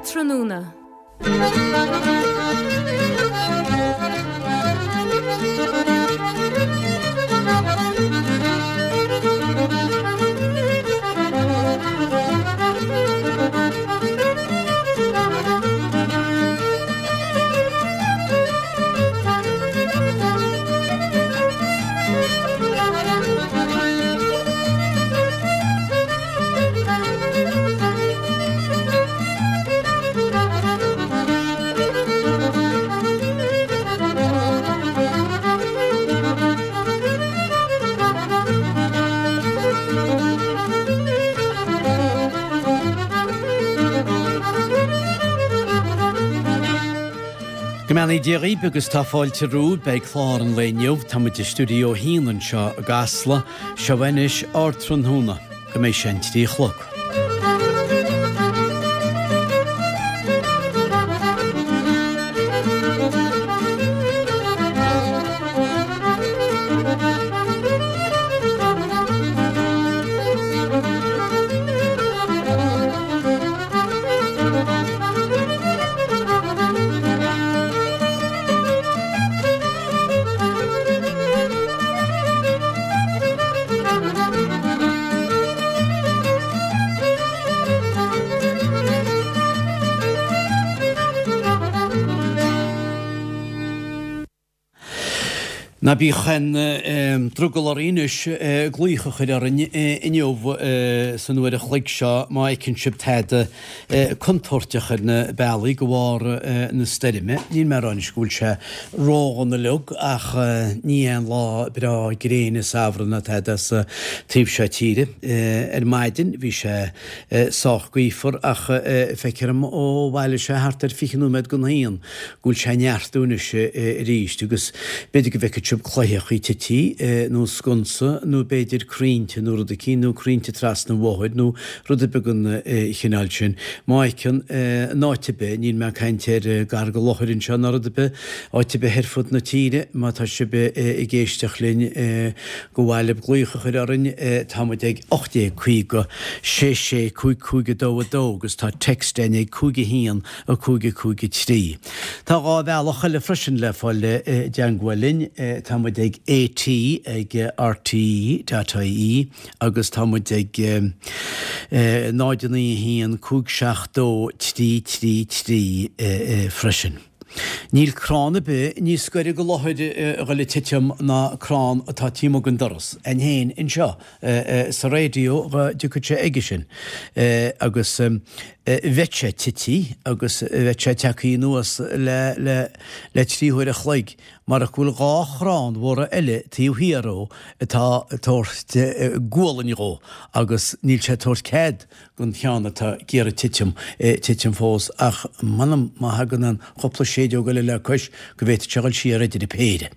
Ardtráthnóna. Go mbeannaí Dia dhaoibh agus tá fáilte romhaibh beidh clár an lae inniu. Tá muid i stiúideo a haon anseo i gCasla. Seo anois Ardtráthnóna. Go mbeidh sé an 3 a chlog. Ná bíodh aon drogall oraibh anois glaoch a chur orainn inniu san uair a chloig seo má fheiceann sibh tada contúirteach ar na bealaí de bharr na stoirme. Níl mé ag rá anois go bhfuil sé ródhona uilig ach ní aon lá breá gréine samhraidh ná tada sa taobh seo tíre. Ar maidin bhí sé sách gaofar ach feictear dom ó bhailigh sé thart ar 20 nóiméad don haon go bhfuil sé ag neartú anois arís agus b'fhéidir go bhfeicfidh sibh cloicheachaí tití nó sconsa nó b'fhéidir crainnte nó rud eicínt nó crainnte trasna an bhóthair nó rud ar bith den chineál sin. Má fheiceann, in áit ar bith, níl mé ag caint ar gar do Lothair anseo ná rud ar bith, áit ar bith ar fud na tíre, má tá sibh ag éisteacht linn go mhaith libh glaoch a chur orainn, tá muid ag 1850 66 55 2 2 agus tá text againn ag 5 1 5 5 3. Tá 2 bhealach eile freisin le fáil i dteangmháil linn, tá muid ag AT ag rte.ie agus tá muid ag 0 9 1 5 7 2 3 3 3 freisin. Níl crann ar bith níos gaire do Lothair a dhul ag titim ná crann atá taobh amuigh den doras a'inn féin anseo sa raidió dá dtiocfadh sé aige sin agus bheadh sé tití agus bheadh sé tagtha anuas le le le 3 huair a chloig marach go bhfuil 2 chrann mhóra eile taobh thiar dhó atá ag tabhairt gualainn dhó agus níl sé ag tabhairt cead don cheann atá ag iarraidh titim, titim fós, ach m'anam má thagann an chúpla séideog eile le cois go bhféadfadh sé dhul siar idir an péire.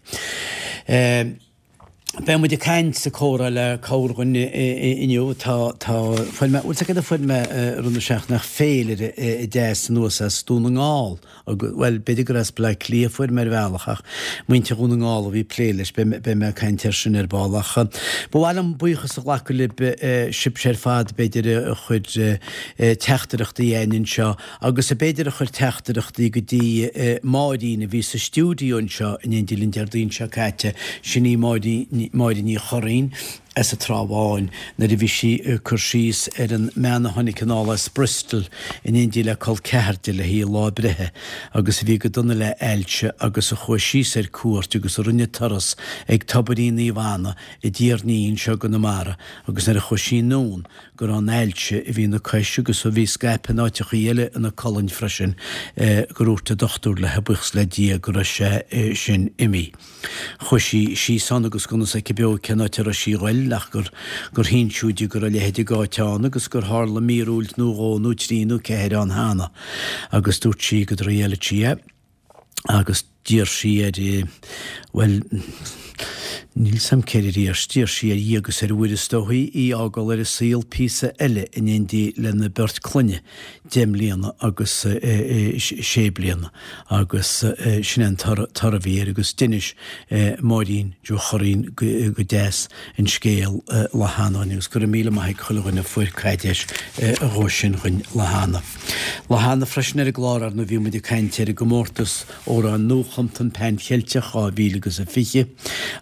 Beidh muid ag caint sa comhrá le corrdhuine inniu. Tá, tá, fuair mé, bhfuil 's agat cad a fuair mé i rith na seachtaine ach féilire deas anuas as Dún na nGall. Bhuel, b'fhéidir gur as Bleá Cliath a fuair mé ar bhealach, ach muintir Dhún na nGall a bhí ag plé leis, beidh mé ag caint air sin ar ball. Ach ba mhaith liom buíochas a ghlacadh libh, sibhse ar fad, b'fhéidir, a chuir teachtaireachtaí againn anseo, agus b'fhéidir a chuir teachtaireachtaí go dtí Máirín a bhí sa stiúideo anseo in éindí linn Déardaoin seo caite, sin í Máirín, Máire Ní Churraoin. as an Trá Bháin nuair a bhí sí ag cur síos ar an mbean a tháinig anall as Bristol in éindí le col ceathar di le haghaidh a lá breithe agus a bhí go dona le ailse agus a chuaigh síos ar cuairt agus a rinne turas ag Tobairín Naomh Anna i dTír an Fhia anseo i gConamara agus nuair a chuaigh sí anonn go raibh an ailse a bhí ina cois agus a bhí scaipthe in áiteachaí eile ina colainn freisin gur dhúirt an dochtúir léi buíochas le Dia go raibh sé sin imithe. Chuaigh sí síos ann agus gan fhios aici beo cén áit a raibh sí a ghoil ach gur gur hinseadh di go raibh a leithéid d'áit ann agus gur tharla míorúilt nó dhó nó trí nó ceathair ann cheana agus dúirt sí go dtriailfeadh sí é agus d'iarr sí air bhuel. Níl 's a'm céard a d'iarr, d'iarr sí ar Dhia agus ar Mhuire is dóichí í a fhágáil ar an saol píosa eile in éindí lena beirt clainne, 10 mbliana agus 6 bliana agus sin é an toradh a bhí air agus d'inis Máirín Joe Churraoin go deas an scéal lá cheana dhuinn agus go raibh míle maith ag chuile dhuine a fuair caidéis dhó sin dhuinn lá cheana. Lá cheana freisin ar an gclár ar ndóigh bhí muid ag caint ar an gcomórtas Amhrán Nuachumta an Pan Cheilteach 2020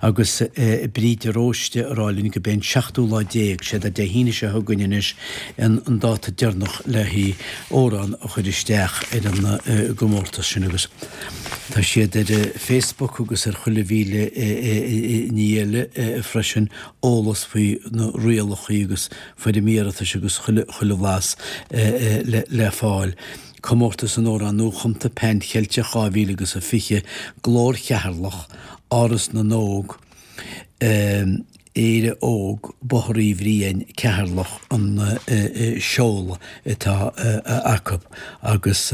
agus Bríd de Róiste ag rá linn gurb é an seachtú lá déag, sé Dé hAoine seo chugainn anois, an dáta deireanach le haghaidh amhrán a chur isteach ar an gcomórtas sin agus tá siad ar Facebook agus ar chuile mhíle ní eile freisin, eolas faoi na rialacha agus foirm iarratais agus chuile bhlas le fáil. Comórtas an Amhráin Nuachumta Pan Cheilteach 2000 agus 20, Glór Cheatharlach, Áras na nÓg, Éire Óg, Bóthar Uí Bhriain, Ceatharlach an seoladh atá acu agus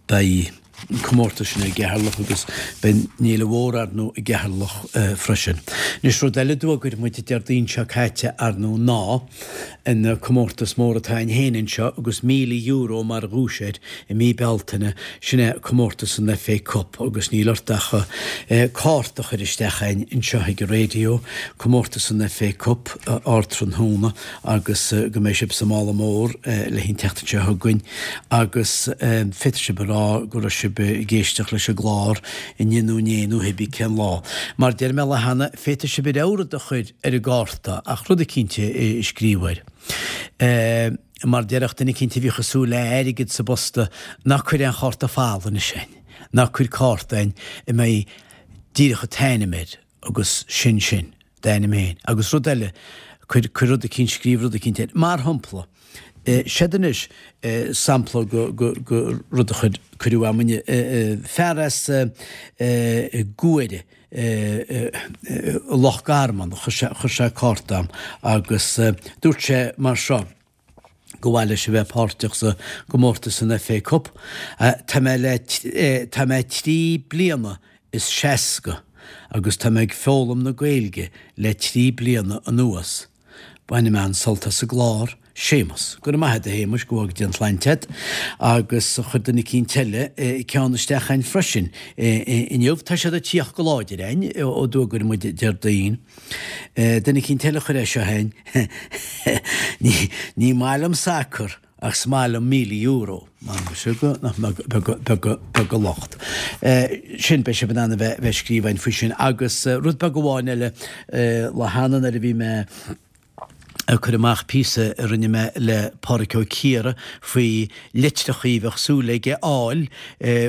beidh an comórtas sin i gCeatharlach agus beidh an fhéile mhór ar ndóigh i gCeatharlach freisin. Anois rud eile a d'fhógair muid Déardaoin seo caite ar ndóigh ná an comórtas mór atá againn féin anseo agus €1,000 mar dhuais air i mí Bealtaine, sin é comórtas an FA Cup agus níl ort ach cárta a chur isteach againn anseo ag an raidió, comórtas an FA Cup, Ardtráthnóna. agus go mbeidh sibh sa mála mór le haghaidh an tseachtain seo chugainn agus féadfaidh sibh a rá go raibh sibh ag éisteacht leis an gclár inniu nó inné nó hébí cén lá. Mar deir mé lá cheana, féadfaidh sibh a rogha rud a chur ar an gcárta ach rud eicínt a scríobh air. Mar déarfadh duine eicínt a bhíodh ag súil le airgead sa bposta, ná cuir aon chárta folamh anois againn, ná cuir cárta againn a mbeidh díreach an t-ainm air agus sin sin. D'ainm féin. Agus rud eile, cuir, cuir rud eicínt, scríobh rud eicínt air. Mar shampla, seod anois sampla go, go, go rud a chuir, cuireadh a'm inniu. Fear as Guaire, Loch Garman, chuir sé, chuir sé cárta a'm agus dúirt sé mar seo, go mhaith leis a bheith páirteach sa gcomórtas san FA Cup. Tá mé le, tá mé 3 bliana is 60 agus tá mé ag foghlaim na Gaeilge le 3 bliana anuas. Bainim an-sult as an gclár. Séamus. Go raibh maith a't a Shéamuis, go bhfága Dia an tsláinte a't. Agus chuir duine eicínt eile ceann isteach a'inn freisin inniu. Tá siad ag tíocht go láidir a'inn ó d'fhógair muid Déardaoin. Duine eicínt eile a chuir é seo a'inn, Ní maith liom sacar ach is maith liom €1,000. M'anam muise go nach mbeag beag beag an locht. Sin, beidh sibh in ann a bheith ag scríobh a'inn faoi sin. Agus rud beag amháin eile, lá cheana nuair a bhí mé ag cur amach píosa a rinne mé le Pádraic Ó Ciardha faoi litreachaí a bheadh súil aige a fháil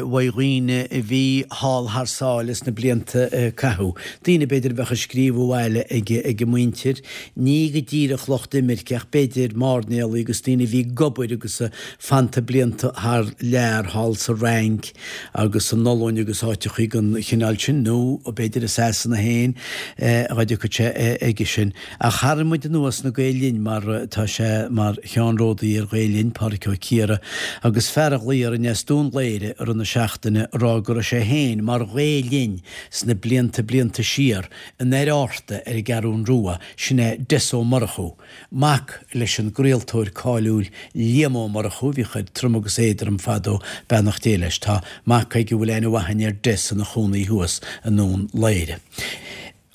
uaidh dhaoine a bhí thall thar sáile sna blianta a caitheadh. Daoine b'fhéidir a bheadh ag scríobh abhaile ag a muintir, ní go díreach lucht imirce ach b'fhéidir mairnéalaigh agus daoine a bhí ag obair agus fanta blianta thar lear thall sa Fhrainc agus san Ollainn agus áiteachaí den chineál sin nó b'fhéidir i Sasana féin dá dtiocfadh sé aige sin. Ach tharraing muid anuas na Gael Linn mar tá sé mar cheannródaí ar Ghael Linn, Pádraic Ó Ciardha, agus fear a ghlaoigh orainn as Dún Laoghaire i rith na seachtaine a rá go raibh sé féin mar Ghael Linn sna blianta blianta siar in Doire Fhatharta ar an gCeathrún Rua, sin é Des Ó Murchú, mac leis an gcraoltóir cáiliúil Liam Ó Murchú a bhíodh ar Trom agus Éadrom fadó, beannacht Dé leis. Tá mac aige a bhfuil aithne mhaith againn ar Des ina chónaí thuas i nDún Laoghaire.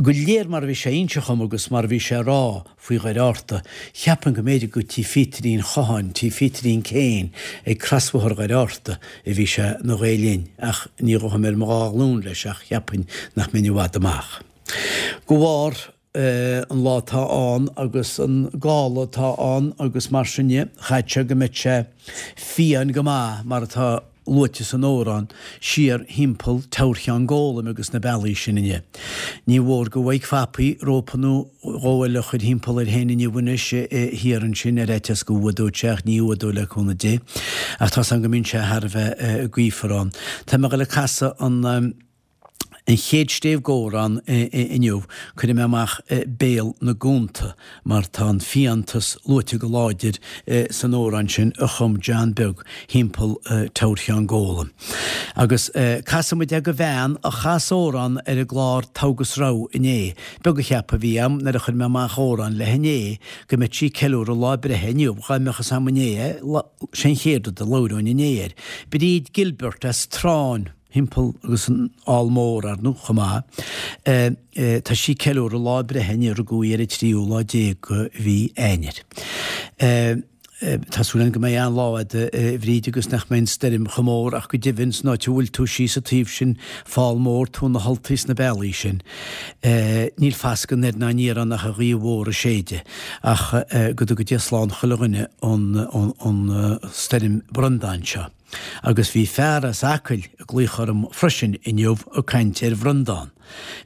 Go léir mar a bhí sé a inse dhom agus mar a bhí sé a rá faoi Dhoire Fhatharta, cheapfainn go mb'fhéidir go tí Phíotarín Chatháin, tí Phíotarín Kane ag crosbhóthar Dhoire Fhatharta a bhí sé na Ghael Linn, ach ní ghabhfainn ar mo dhá ghlúin leis ach cheapfainn nach mbeinn i bhfad amach. De bharr an lá atá ann agus an gála atá ann agus mar sin dhe, chaithfeadh sé go mbeadh sé fiáin go maith mar atá luaite san amhrán, siar thimpeall Teamhair Cheann Gólaim agus na bealaí sin inniu. Ní mhór go bhfaighidh Fapaí rópa nó dhó eile a chur thimpeall air féin inniu anois thiar ansin ar fhaitíos go bhfuadóidh sé ach ní fhuadóidh le cúnamh Dé. Ach tá's agam go mbíonn sé thar a bheith gaofar ann. Tá mé ag dul ag casadh an. An chéad stéibh dh'amhrán inniu, cuirfidh mé amach Béal na gCuanta mar tá an fiántas luaite go láidir san amhrán sin a chum John Beag thimpeall Teamhair Cheann Góla. Agus casfaidh muid é go bhean a chas amhrán ar an gclár Togha agus Rogha inné. Beag an ceapadh a bhí a'm nuair a chuir mé amach amhrán léi inné go mbeadh sí ag ceiliúradh lá breithe inniu, dhá mbeadh fhios a'm inné é, sé an chéad rud a labhróinn inné air. Bríd Gilbert as Tráinn. thimpeall agus an Fhál Mór, ar ndóigh, chomh maith. Tá sí ag ceiliúradh lá breithe inniu, rugadh í ar an tríú lá déag de mhí Eanáir. Tá súil againn go mbeidh an-lá agat, a Bhríd, agus nach mbeidh an stoirm chomh mór ach go deimhin san áit a bhfuil tú síos an taobh sin, Fál Mór, Tóin na Ultaí sna bealaí sin. Níl fascadh anoir ná aniar ann ach an ghaoth mhór ag séideadh. Ach go dtuga Dia slán chuile dhuine ón stoirm Breandán seo. Agus bhí fear as Acaill ag glaoch orm freisin inniu ag caint ar Bhreandán.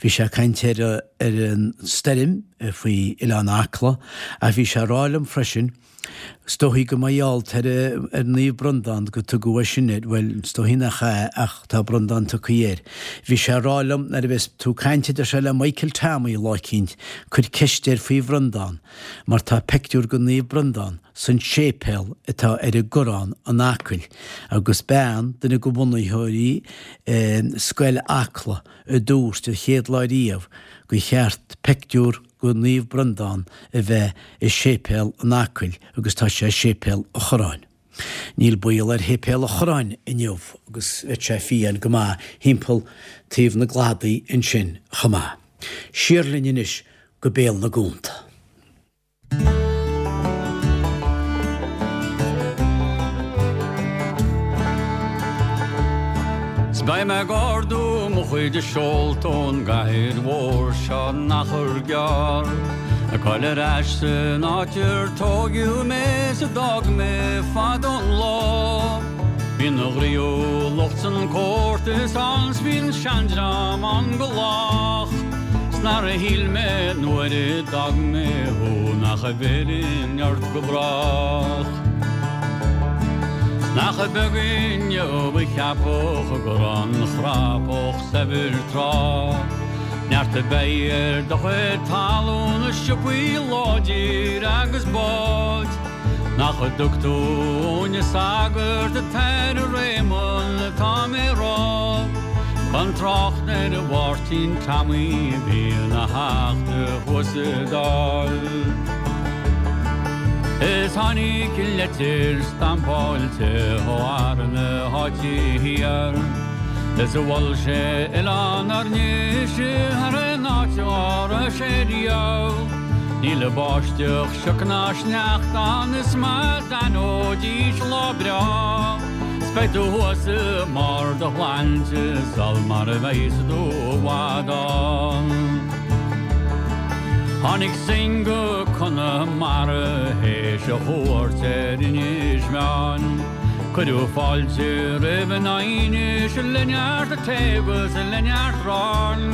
Bhí sé ag caint ar ar an stoirm faoi Oileán Acla ach bhí sé ag rá liom freisin, is dóichí go mba gheall ar ar Naomh Breandán go tugadh é sin air, bhuel, is dóichí nach ea ach tá Breandán tugtha air. Bhí sé ag rá liom nuair a bheas tú ag caint a deir sé le Michael Tommy lá eicínt, cuir ceist air faoi Bhreandán mar tá peictiúr go Naomh Breandán san séipéal atá ar an gCorrán in Acaill agus bean, duine de bhunaitheoirí Scoil Acla, a dúirt an chéad lá riamh gur cheart peictiúr go Naomh Breandán a bheith i séipéal in Acaill agus tá sé i séipéal an Chorráin. Níl baol ar shéipéal an Chorráin inniu agus bheadh sé fiáin go maith thimpeall taobh na gcladaí ansin chomh maith. Siar linn anois go Béal na gCuanta. 'S beidh mé ag ardú mo chuid seolta ón gcathair mhór seo in achar gearr, Ag goil ar ais san áit ar tóigeadh mé 's a d'fhág mé fadó an lá. Bíonn an ghnaíúlacht 's an comórtas ann 's bíonn seandream ann go lách. 'S nár shíl mé nuair a d'fhág mé thú nach bhfillfinn ort go brách. 'S nach beag inniu a cheapfadh go raibh an chrapach saibhir tráth. Neart a bheidh ar do chuid talún is siopaí láidir agus báid. Nach dtug tú uainne sagart an tAire Réamonn atá mé rá, Gan trácht ar Mháirtín Tommy a bhí ina theachta thuas sa Dáil. Is tháinig leitir stampáilte ó fhear na háite thiar, Is mhol sé Oileán Fhirnis thar aon áit dá raibh sé riamh. Níl báisteach, sioc ná sneachta ann is má d'aithneoidís lá breá 's beidh tú thuas i mbarr do shláinte sul mar a bheas tú i bhfad ann. Tháinig Synge go Conamara théis a chuairt ar Inis Meáin. Cuireadh fáilte roimh in Inis le neart tae agus le neart aráin.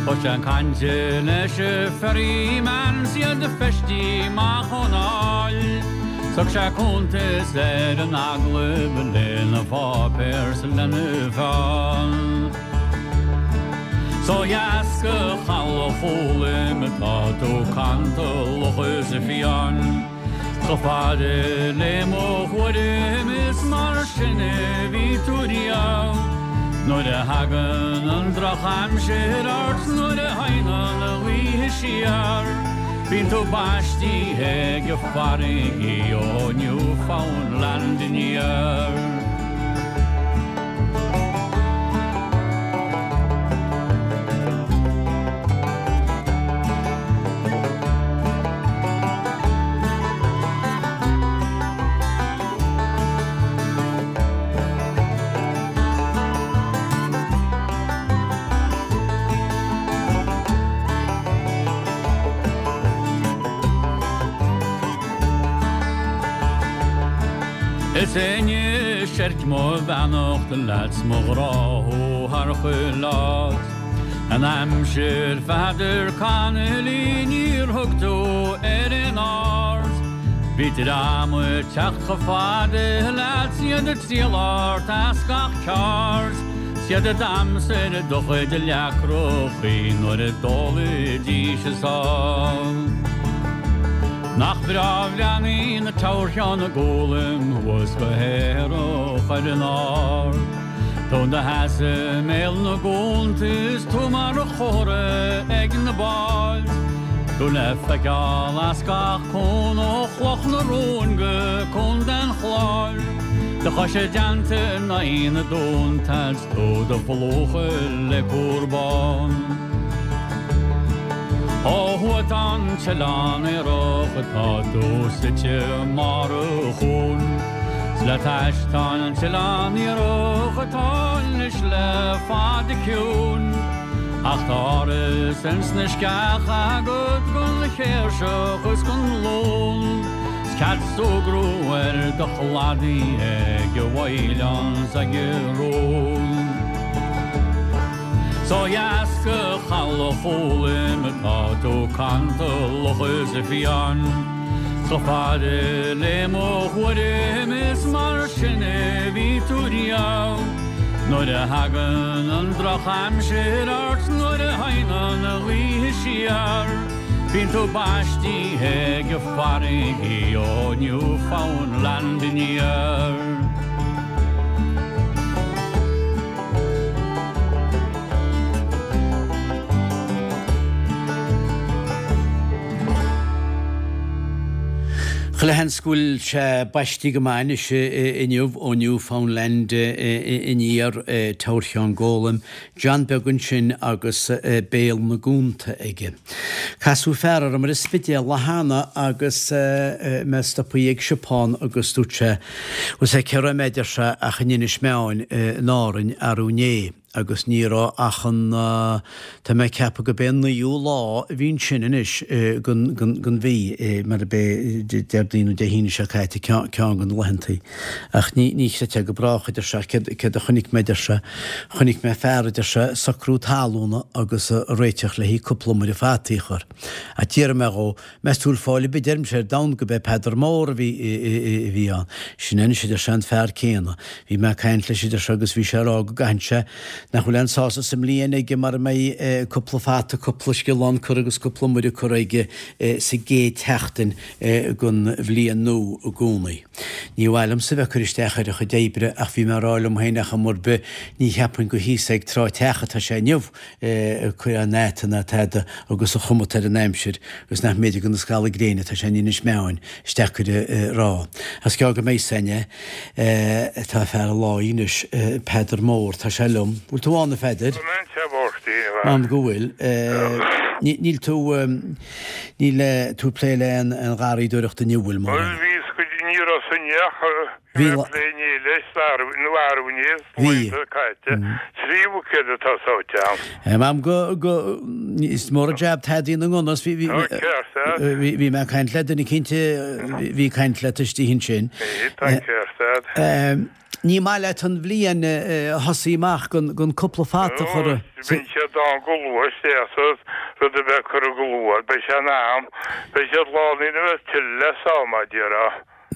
Thosaigh sé ag caint leis an ferryman 's iad feistí amach ón áill. 'S thug sé cuntas ar an agallamh lena pháipéar 's lena pheann. 'S ó dheas go Chaladh Chóloim atá tú cantalach is fiáin. Chomh fada le mo thuairim is mar sin a bhí tú riamh. Nuair a thagann an drochaimsir ort nuair a théann an ghaoth siar, bíonn tú baistithe ag farraigí ó Newfoundland aniar. Is anois oirc mo bheannacht leat 's mo ghrá thú thar chuile áit. An aimsir Pheadair Connolly níor thug tú ar aon aird. Bhí dream ag teacht chomh fada leat 's iad ag triall ort as gach ceard. 'S iad a d'aimsigh do chuid leacrachaí nuair a d'ólaidís a sáith. Nach breá a bhreathnaíonn Teamhair Sheáin Gólaim thuas go haerach ar an ard. Tú 'do sheasamh i mbéal na gcuanta is tú mar chomhartha ag na báid. Tú le feiceáil as gach cuan ó Chloch na Rón go Contae an Chláir. Do chois i dteannta in aghaidh na dtonnta 's tú do phlúchadh le cúr bán. Ó thuaidh tá an t-oileán aerach atá tú suite i mbarr an chuain. 'S le t'ais tá an t-oileán iartharach atá anois le fada ciúin. Ach tá áras ins na sceacha agat gon chéirseach is gon lún. 'S cead súgradh ar do chladaí ag an bhfaoileán 's ag an rún. 'S ó dheas go Chaladh Chóloim atá tú cantalach is fiáin. 'S chomh fada le mo thuairim is mar sin a bhí tú riamh. Nuair a thagann an drochaimsir ort nuair a théann an ghaoth siar. Bíonn tú baistithe ag farraigí ó Newfoundland aniar. Chuile sheans go bhfuil sé baistí go maith anois inniu ó Newfoundland aniar, Teamhair Sheáin Gólaim, John Beag ansin agus béal na gcuanta aige. Casadh fear orm ar an Spidéal lá cheana agus mé stopthaí ag siopa agus dúirt sé, bhfuil 's a'd cé raibh mé, a deir sé, ach in Inis Meáin in Árainn arú inné agus ní raibh ach an, tá mé ag ceapadh go b'é an naoú lá a bhí ansin anois den mhí, mar ab é Déardaoin nó Dé hAoine seo caite ceann de na laethantaí. Ach ní, ní chreidfeá go brách, a deir sé, céard, céard a chonaic mé, a deir sé, chonaic mé fear, a deir sé, ag socrú talúna agus ag réiteach le haghaidh cúpla iomaire fataí a chur. Ach d'fhiafraigh mé dhó, meas tú bhfuil fáil ar bith, deirimse, ar domhan go b'é Peadar Mór a bhí, a bhí ann. Sin é anois, a deir sé, an fear céanna. Bhí mé ag caint leis, a deir sé, agus bhí sé ag rá go gcaitheann sé, nach bhfuil aon sásamh sa mbliain aige mara mbeidh cúpla fata, cúpla sciolán curtha agus cúpla iomaire curtha aige sa gcéad tseachtain den bhliain nua i gcónaí. Ní mhaith liomsa bheith ag cur isteach ar a chuid oibre ach bhí mé ag rá liom féin ar chuma ar bith ní cheapfainn gur thíos ag Trá Teach atá sé inniu ag cur aon fhata ná tada agus an chuma atá ar an aimsir agus nach mb'fhéidir gur na scamaill gréine atá sé in Inis Meáin is deacair a rá. Is gearr go mbeidh 's againne. Tá fear an lae anois, Peadar Mór, tá sé liom. Bhfuil tú ann a Pheadair? Tá mé anseo, a Mháirtín, a mhac. M'anam go bhfuil. Níl tú. Níl tú ag plé le aon gharraíodóireacht inniu, bhfuil, Bhuel, bhíos go dtí ní raibh san ach bhí mé ag plé inné leis, nó arú inné, sna laethanta caite. 3 bhuicéad atá sáite a'm. M'anam go, go, is mór an jab Tadaí na ngunna, bhí, bhí, Tá ceart a'd. bhí, bhí mé ag caint le duine cinnte, bhí ag caint leat istigh ansin. Bhí, tá ceart a'd. Ní maith leat an bhliain a thosaí amach gan cúpla fata a chur i. Bíonn siad ann go luath is éasca rud a bheith curtha go luath. Beidh sé in am. Beidh siad lán ina bheith tuilleadh le sá, mar a déarfá.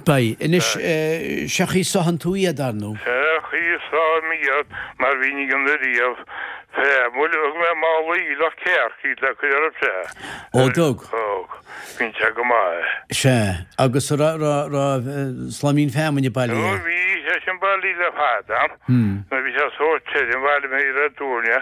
Beidh. Anois, sé chaoi a sáthann tú iad, ar ndú. Sé chaoi a sáim iad mar bhínn ag déanamh riamh. Fé, bhuel, thug mé mála aoileach cearc iad le cur orthu sea. Ó, dtug? Thug. Bíonn sé go maith. Sea. Agus a raibh, raibh, raibh slaimín feamainne bailithe? Ó bhí sé sin bailithe le fada. Nuair a bhí sé sórt tirim, bhailigh mé iad ar dtuairne.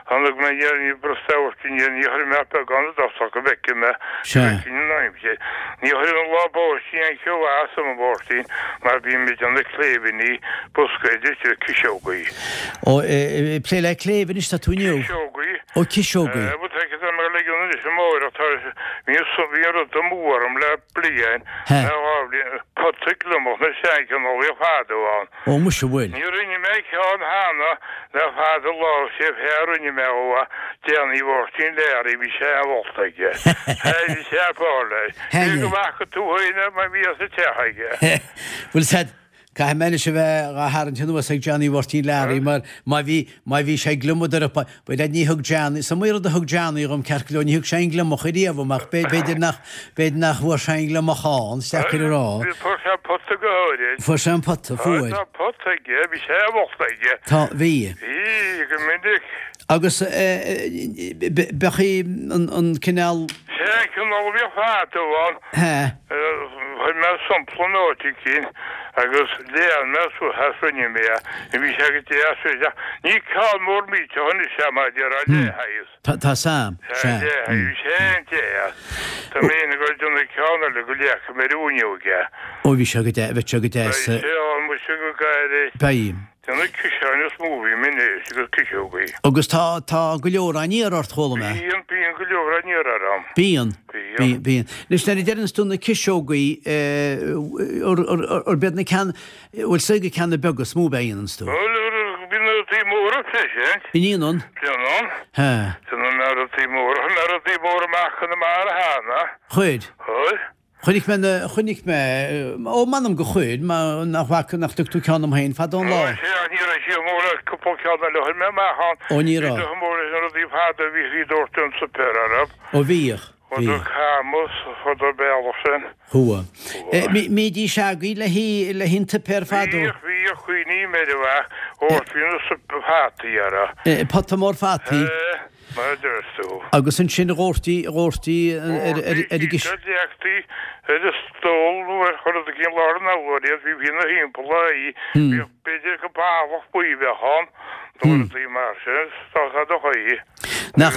Tháinig mé aniar, ní brostú amharc aniar, ní chuirfidh mé ach beagán i dtosach go bhfeicfidh mé, go bhfeicfinn an aimsir. Ní chuirfinn an lá báistí aon cheo as an Mháirtín mar bíonn mé ag déanamh cléibhíní, boscaid is ciseogaí. Ó, ag plé le cléibh anois tá tú inniu? Ciseogaí. Ó, ciseogaí. Bhuel, tá mé ag ligean anois amárach, tá, bhí an rud amú orm le bliain, le dhá bhliain, pota gliomach na seanchineálacha fadó ann. Ó, muise, bhfuil. Ní rinne mé ceann cheana le fada an lá, sé fear a rinne mé ó Danny Mháirtín Learaí, bhí sé an-mholta aige. Bhí sé ag fáil leis. Cé go bhfaca tú féin é mar bhí sa teach aige. Bhfuil said. Caithfidh mé anois a bheith dhá tharraingt anuas ag Johnny Mháirtín Learaí mar má bhí, má bhí sé ag gliomadar up, bhuel ní thug Johnny, is iomaí rud a thug Johnny dhom ceart go leor, ní thug sé aon gliomach ariamh dhom ach b'fhéidir nach, b'fhéidir nach bhfuair sé aon gliomach ann, is deacair a rá. Bhí, fuair sé an pota go háirid. Fuair sé an pota, fuair. Tá pota aige, bhí sé i bhfolt aige. Tá, bhí. Bhí, go minic. Agus bheadh an cineál. Sé an cineál a bhíodh fadó ann. Hea. Chuir mé sampla in áit eicínt agus lean mé suas as rinne mé é. Bhí sé go deas ach ní ceann mór millteach anois é mar a déarfá leathshaghas. Tá 's a'm. Sea, leathshaghas. Bhí sé an-deas. Tá mé ag dul ag déanamh ceann eile go leagfaidh mé ar an bhfuinneog é. Ó bhí sé go deas, bheadh sé go deas. Beidh sé ann muise go gairid. Beidh. Déanamh ciseáin is mó a bhím anois agus ciseogaí. Agus tá, tá go leor á n-iarraidh ort, chuala mé. Bíonn, bíonn go leor á n-iarraidh orm. Bíonn. Bíonn. Bíonn. Anois nuair a deireanns tú na ciseogaí, arb iad na ceann, bhfuil 's ag na ceanna beaga is mó a dhéananns tú? Bhuel, bíonn na rudaí móra freisin. An ndéanann? Déanann. Hea. Déanann na rudaí móra, chuir mé rudaí móra amach Conamara cheana. Chuir. Chuir. Chonaic mé na, chonaic mé, ó m'anam go chuir, mar nach bhfaca, nach dtug tú ceann dom féin fadó an lá. Ó sea, ní raibh siad mór ach cúpla ceann eile a chuir mé amach ann. Ó ní raibh. Bhí mór leis na rudaí fada a bhí ag doirteadh an tsuipéir orthu. Ó bhíodh, bhíodh. Chuadar camas, chuadar bealach sin. Chuaigh. Mbídís agaibh le haghaidh, le haghaidh an tsuipéir fadó? Bhíodh, bhíodh, cuimhním air a bheadh, dhoirtí na suip fataí orthu. Pota mór fataí. Sea. Mar a deir tú. Agus ansin dhóirtí, dhóirtí ar, ar, ar an gcis. Dhóirtí, leagtaí ar an stól nó ar chur os cionn lár an urláir iad, bhí ina thimpeall í, bhíodh b'fhéidir go ballach buí a bheadh ann nó rudaí mar sin, is dá do chaoi. Nach,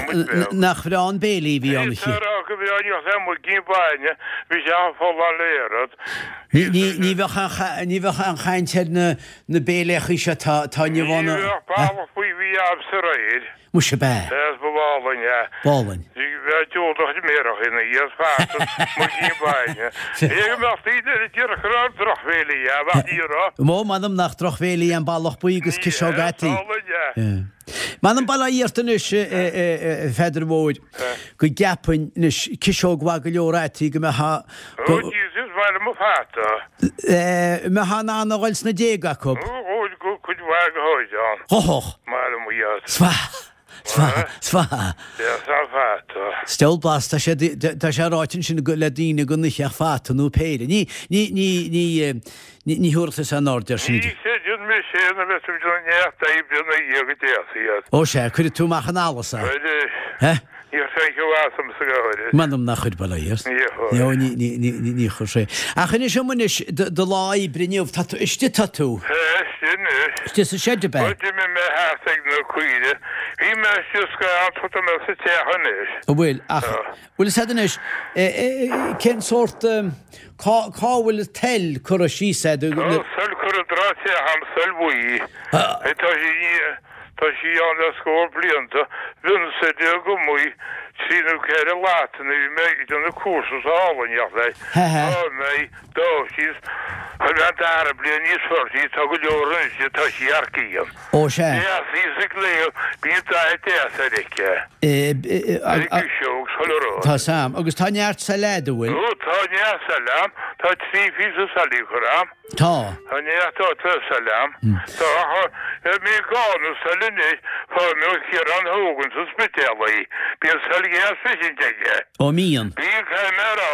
nach bhreá an béilí a bhí ann. Tá a rá go bhreá, ní bheadh aon mhuigín bainne, bhí sé folláin le oiread. Ní, ní, ní bheadh aon, ní bheadh aon chaint ar na, na béiléachaí seo atá, atá inniu ann. Ní bheadh ballach buí a bhí agamsa aréir. Muise ab ea? Sea, ba álainn é. B'álainn. Bheadh diúltach méarach ina dhiaidh feasta, muigín bainne. Cé go mbeadh daoine eile ag iarraidh go raibh drochbhéilí ann, ach ní raibh. Ó, m'anam nach drochbhéilí an ballach buí agus ciseog fhataí. Ní hea, is álainn é. M'anam bail ó Dhia ort anois, a Pheadair Mhóir, go gceapfainn anois ciseog mhaith go leor fhataí go mbeadh Ó, Jesus, maith liom an fata. mbeadh in ann a dhul sna déaga acu. Ó, go cuid mhaith go háirithe ann. Ghothach. Maith liom iad. 'S mhaith, 's mhaith, 's mhaith. Deas an fata. Steall blasta, tá sé, tá sé ráite ansin le daoine go n-itheadh fata nó péire. Ní, ní, ní, ní, ní, ní thabharfadh tusa aon aird air sin. Ní chreideann mise é na bheith ag déanamh neart oibre ina dhiaidh go deas iad. Ó sea, cuirfidh tú amach an allas é. Cuirfidh. Níor chuir sé as ormsa go háirid. M'anam nach chuir, bail ó Dhia ort. Níor chuir. Ní, ní, ní, ní, ní, ní chuir sé. Ach inis dom anois, do, do lá oibre inniu, tá tú, istigh tá tú. Tá, istigh anois. Istigh sa seid, ab ea? Bhuel, d'imigh mé thart ag na caoire. Bhí mé istigh scaitheamh, tá mé sa teach anois. An bhfuil, ach, Tá. bhfuil fhios a'd anois, eh, eh, cén sórt, eh, cá, cá bhfuil an tsail curtha síos a'd? Tá an tsail curtha i dtreo an teach a'm, sail bhuí. Tá sí, Tá sí ann le scór blianta. Bhínnse agam í, trí nó ceithre lata nuair a bhí mé ag déanamh cúrsa sa álainn leis. Tá mé dá síos. Chuir mé an dara bliain níos fearr sí, tá go leor anois di, tá sí thar cionn. Ó sea. Deas í sa gcléibh, bíonn dath deas ar aici. Ar an gciseog, chuile rud. Tá 's a'm. Agus tá neart sail a'd, an bhfuil? Ó, tá neart sail a'm. Tá trí phíosa sailí curtha a'm. Tá. Tá neart sail a'm. Tá, ach mé gá na sail anois, fuair mé ó Chiarán Hogan sa Spidéal í. Bíonn sail dheas freisin aige. Ó mbíonn? Bíonn, caithfidh mé a rá,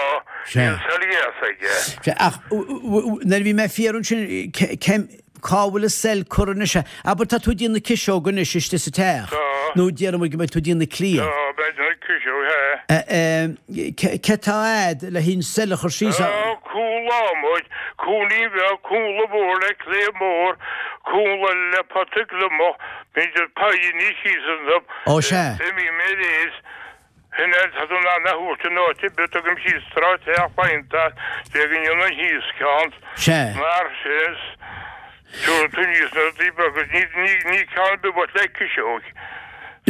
bíonn sail dheas aige. Sea, ach nuair a bhí mé ag fiafraí ansin, cén, cá bhfuil an sail curtha anois? Abair tá tú ag déanamh na ciseoga anois istigh sa teach. Tá. Nó déarfaidh muid go mbeidh tú ag déanamh na cliabh. Tá, beidh na ciseoga, sea. Cé tá a'd le haghaidh an sail a chur síos? Tá cúl adhmaid, cúinní bheag, cúnla mór le cliabh mór, cúnla le pota gliomach, b'fhéidir paidhní síos iontu. Ó sea. Imím ar aos. Sin é, tá tú in ann a thabhairt in áit ar bith, tugaim síos tráth teach faighte, de go ndéanann thíos ceann. Sea. Mar sin. Tabharfaidh tú níos na rudaí beaga, ní, ní, ní ceann ar bith uait le ciseog.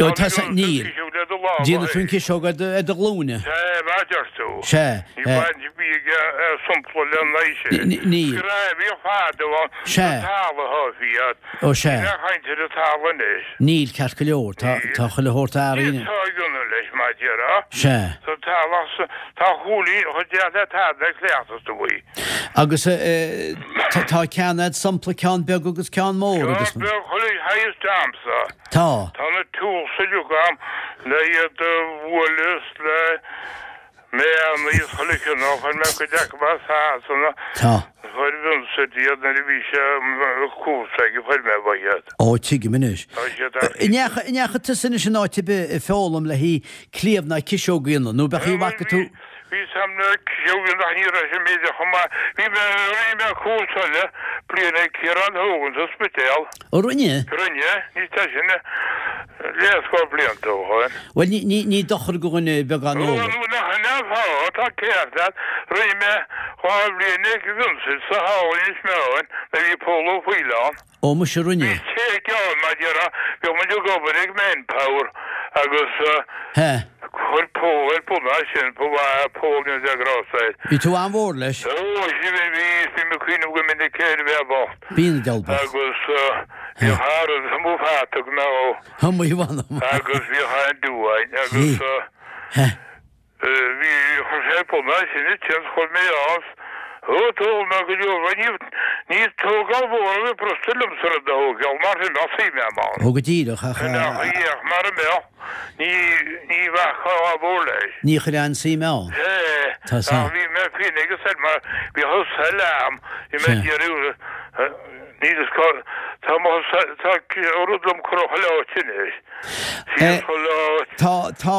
Ó, tá sa, níl. Ciseog le do lámha. Déanfaidh tú an ciseog ar do, ar do ghlúine. Sea, mar a deir tú. Sea. Ní baint a bhí ag sompla le n-aghaidh sin. Níl. Screamh bhíodh fadó ann. Sea. Sa talamh atá iad. Ó, sea. Níl aon chaint ar an talamh anois. Níl, ceart go leor. Tá, tá chuile shórt athraithe. Tá ag ionadh leis, mar a déarfá. Sea. Sa talamh, tá chúilín chomh deas le tada le cleachtas do bhaoi. Agus. Tá ceann a'd sampla ceann beag agus ceann mór agus. Ceann beag chuile shaghas a'msa. Tá. Tá na tools uilig a'm le iad a bhualadh is le méanna is chuile chineál, chuir mé cuid acu as Sasana. Tá. Chuir Vincent iad nuair a bhí sé cúrsa aige chuir mé uaidh iad. Ó tuigim anois. Tá siad ar. An ndeachaigh tusa anois in áit ar bith ag foghlaim le haghaidh cliabh ná ciseog a dhéanamh nó b'eadh í a bhfaca tú? Bhí sam na ciseoga nach ní raibh sé méideach chomh maith. Bhí mé, rinne mé cúrsa eile bliain ag Ciarán Hogan sa Spidéal. Ó rinne? Rinne, ní tá sin leathscór blianta ó shoin. Bhuel, ní, ní, ní dochar do dhuine beagán eolais. Ó, nach in é an fáth, tá ceart leat. Rinne mé 2 bhliain ag Vincent sa hall Inis Meáin nuair a bhí Pól Ó Foighil ann. Ó muise rinne. Bhí sé gearr mar déarfá, bhíodh muid ag obair ag Manpower agus chuir Pól ar bun é sin, ba mhaith é Pól ní raibh grásta air. Bhí tú an-mhór leis. Ó bhí, bhí, bím ag cuimhneamh go minic air a bheith bocht. Bíonn an diabhal bocht. Agus bhíodh thar an mo pheata go mbeadh. Mo mh'anam. Agus bhíodh an-dua agus. Bhí, chuir sé ar bun é sin ansin, chuir mé as, ó d'fhoghlaim mé go leor, bhuel ní, ní tógáil mhór a bhí brostú liomsa rud a thógáil mar sin bheadh suim a'm ann. Ó go díreach, ach. Ach ach mara mbeadh, ní, ní bheadh gá mhór leis. Ní chuir aon suim ann. Sea, Tá ach bhí mé féin ag an said mar bhí an sail a'm, bhí mé ag iarraidh, níl fhios cá, tá mo, tá rud liom cur chuile áit anois. Síos chuile áit. Tá, tá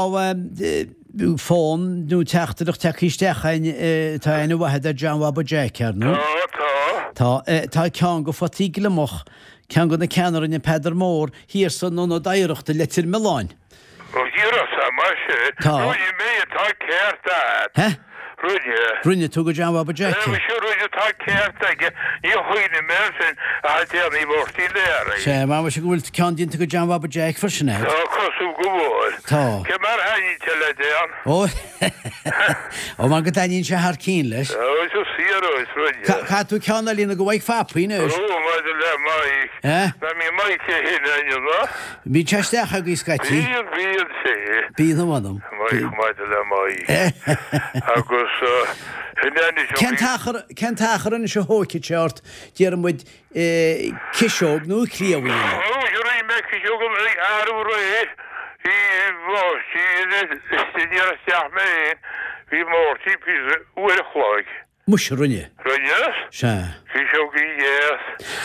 fón nó teachtaireacht tagtha isteach againn, tá aithne mhaith agat ar John Bhaba Jeaic, ar ndóigh. Tá, tá. Tá, tá ceann de photaí gliomach, ceann de na ceanna a rinne Peadar Mór thiar san Ionad Oidhreachta i Leitir Mealláin. Ó thiar as mar sin. Tá. Rinne mé, tá ceart agat. Heh? Rinne. Rinne tú go John Bhaba Jeaic é? Muise rinne, tá ceart aige. Ní chuimhním air sin ach le déanaí Mháirtín Learaí. Sea, mar muise go bhfuil ceann déanta go John Bhaba Jeaic freisin agat. Tá, cosúil go bhfuil. Tá. Cé mar a thaitníonn sé le déan? Ó, ó mar go dtaitníonn sé thar cinn leis. Ó, is fíor é, is rinne. Caithfidh tú ceann a líonadh go Mhaidhc Phapaí anois. Ó, maidir le Maidhc. Eh? Ná mbíonn Maidhc é féin a'inn, ná? Bíonn sé isteach agaibh scaití. Bíonn, bíonn sé. Bíonn a mh'anam. Maidhc, maidir le Maidhc. Agus sin é anois Cén t-achar, cén t-achar anois a thóigfidh sé ort, déarfaidh muid, ciseog nó cliabh a dhéanamh? Ó, rinne mé ciseog arú aréir, bhí Máirtín, ní raibh isteach mé féin, bhí Máirtín píosa uair a chloig. Muise, rinne. Rinne? Sea. Ciseogaí dheas.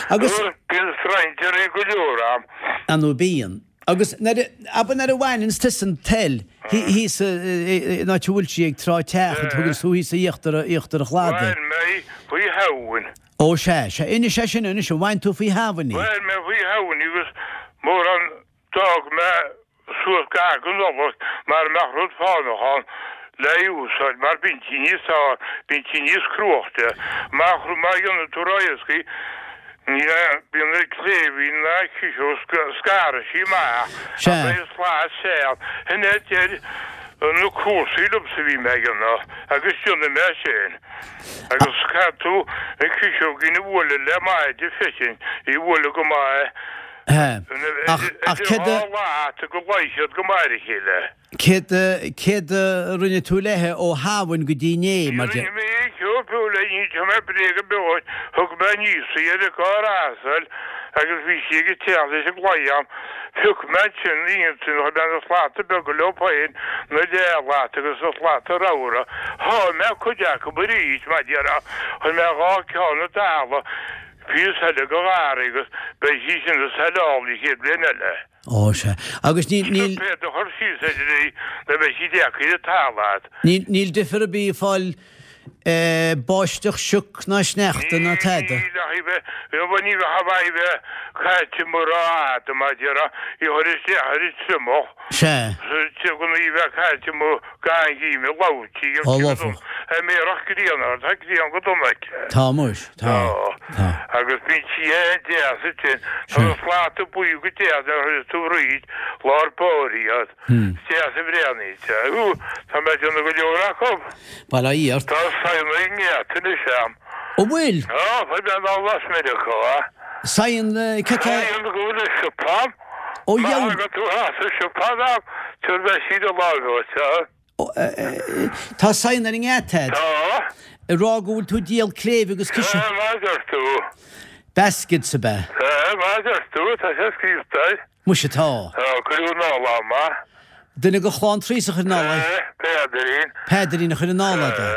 Agus. Bíonn strainséirí go leor ann. Ar ndóigh bíonn. Agus nuair a, abair nuair a bhaineanns tusa an tsail, thíos in áit a bhfuil sí ag Trá Teach, a thuganns tú thíos íochtar, íochtar an chladaigh. Bhain mé faoi Shamhain. Ó sea, sea. Inis é sin anois, an bhain tú faoi Shamhain í? Bhain mé faoi Shamhain í agus mórán D'fhág mé suas gar don Nollaig mara mbeadh rud fánach ann le úsáid mar bíonn sí níos fearr, bíonn sí níos cruaichte. Má má dhéanann tú ró-éascaí ní bíonn na cléibhín ná ciseog scarfaidh sí amach Sea. ach beidh slat seal. Sin é a deir na cúrsaí liomsa a bhí mé a dhéanamh agus déanfaidh mé sin. Agus caithfidh tú an ciseoigín a bhualadh le maide freisin, í a bhualadh go maith. Ach, ach céard a. Idir dhá lata go luífidh siad go maith ar a chéile. Céard a, céard a rinne tú léithe ó Shamhain go dtí inné, mar Ní rinne mé aon cheo fiú le ní mé bréag ar bith dhuit. Thug mé aníos í ar an gcarr asail agus bhí sí ag teacht leis an gclaí a'm. Phioc mé ansin iontu, chuir mé na slata beaga leo féin, na leathlata agus na slata ramhra. Sháigh mé cuid acu arís, mar déarfá. Chuir mé dhá ceann i dtalamh. Píosa eile go gharraí agus beidh sí sin ina saileáil an chéad bhliain eile. Ó, sea. Agus níl, níl. Puipéad a chur síos idir í nó beidh sí deacair ar talamh a'd. Níl, níl difear ar bith ag fáil báisteach, sioc ná sneachta ná tada. Níl ach í bheith, bhuel ní bheadh a bheith bheith caite mura fhada mar déarfá, í a chur isteach ar an triomach. Sea. Go í bheith caite amuigh. Gan gheimhreadh labhairtí ar Ó, cibé lofadh. An mbeadh grian air, tá grian go dona aici. Tá muis, tá, tá. Agus bíonn sí an-deas ansin. Tá na slata buí go deas nuair a chuireas tú fríd lár báire iad. Is deas a bhreathnaíonn sé. Hú, tá mé ag déanamh go leor acu. Bail ó Dhia ort. Tá saigheanna ag an ngeata anois a'm. An bhfuil? Tá, fuair mé anall as Meiriceá. Saigheann, cad tá. Saigheann go bhfuil i siopa a'm. Ó Má dheabhail. thagann tú as an siopa a'm, tabharfaidh mé síneadh láimhe dhuit, a. Tá saigheanna ar an ngeata a'd. Tá. Ag rá go bhfuil tú ag díol cléibh agus ciseán. Sea, mar a deir tú. Baskets ab ea? Sea, mar a deir tú, tá sé scríobhta air. Muise tá. Tá, cuireadh anall agam é. Duine de chlann Treasa a chuir anall é? Sea, Peadairín. Peadairín a chuir anall é, do.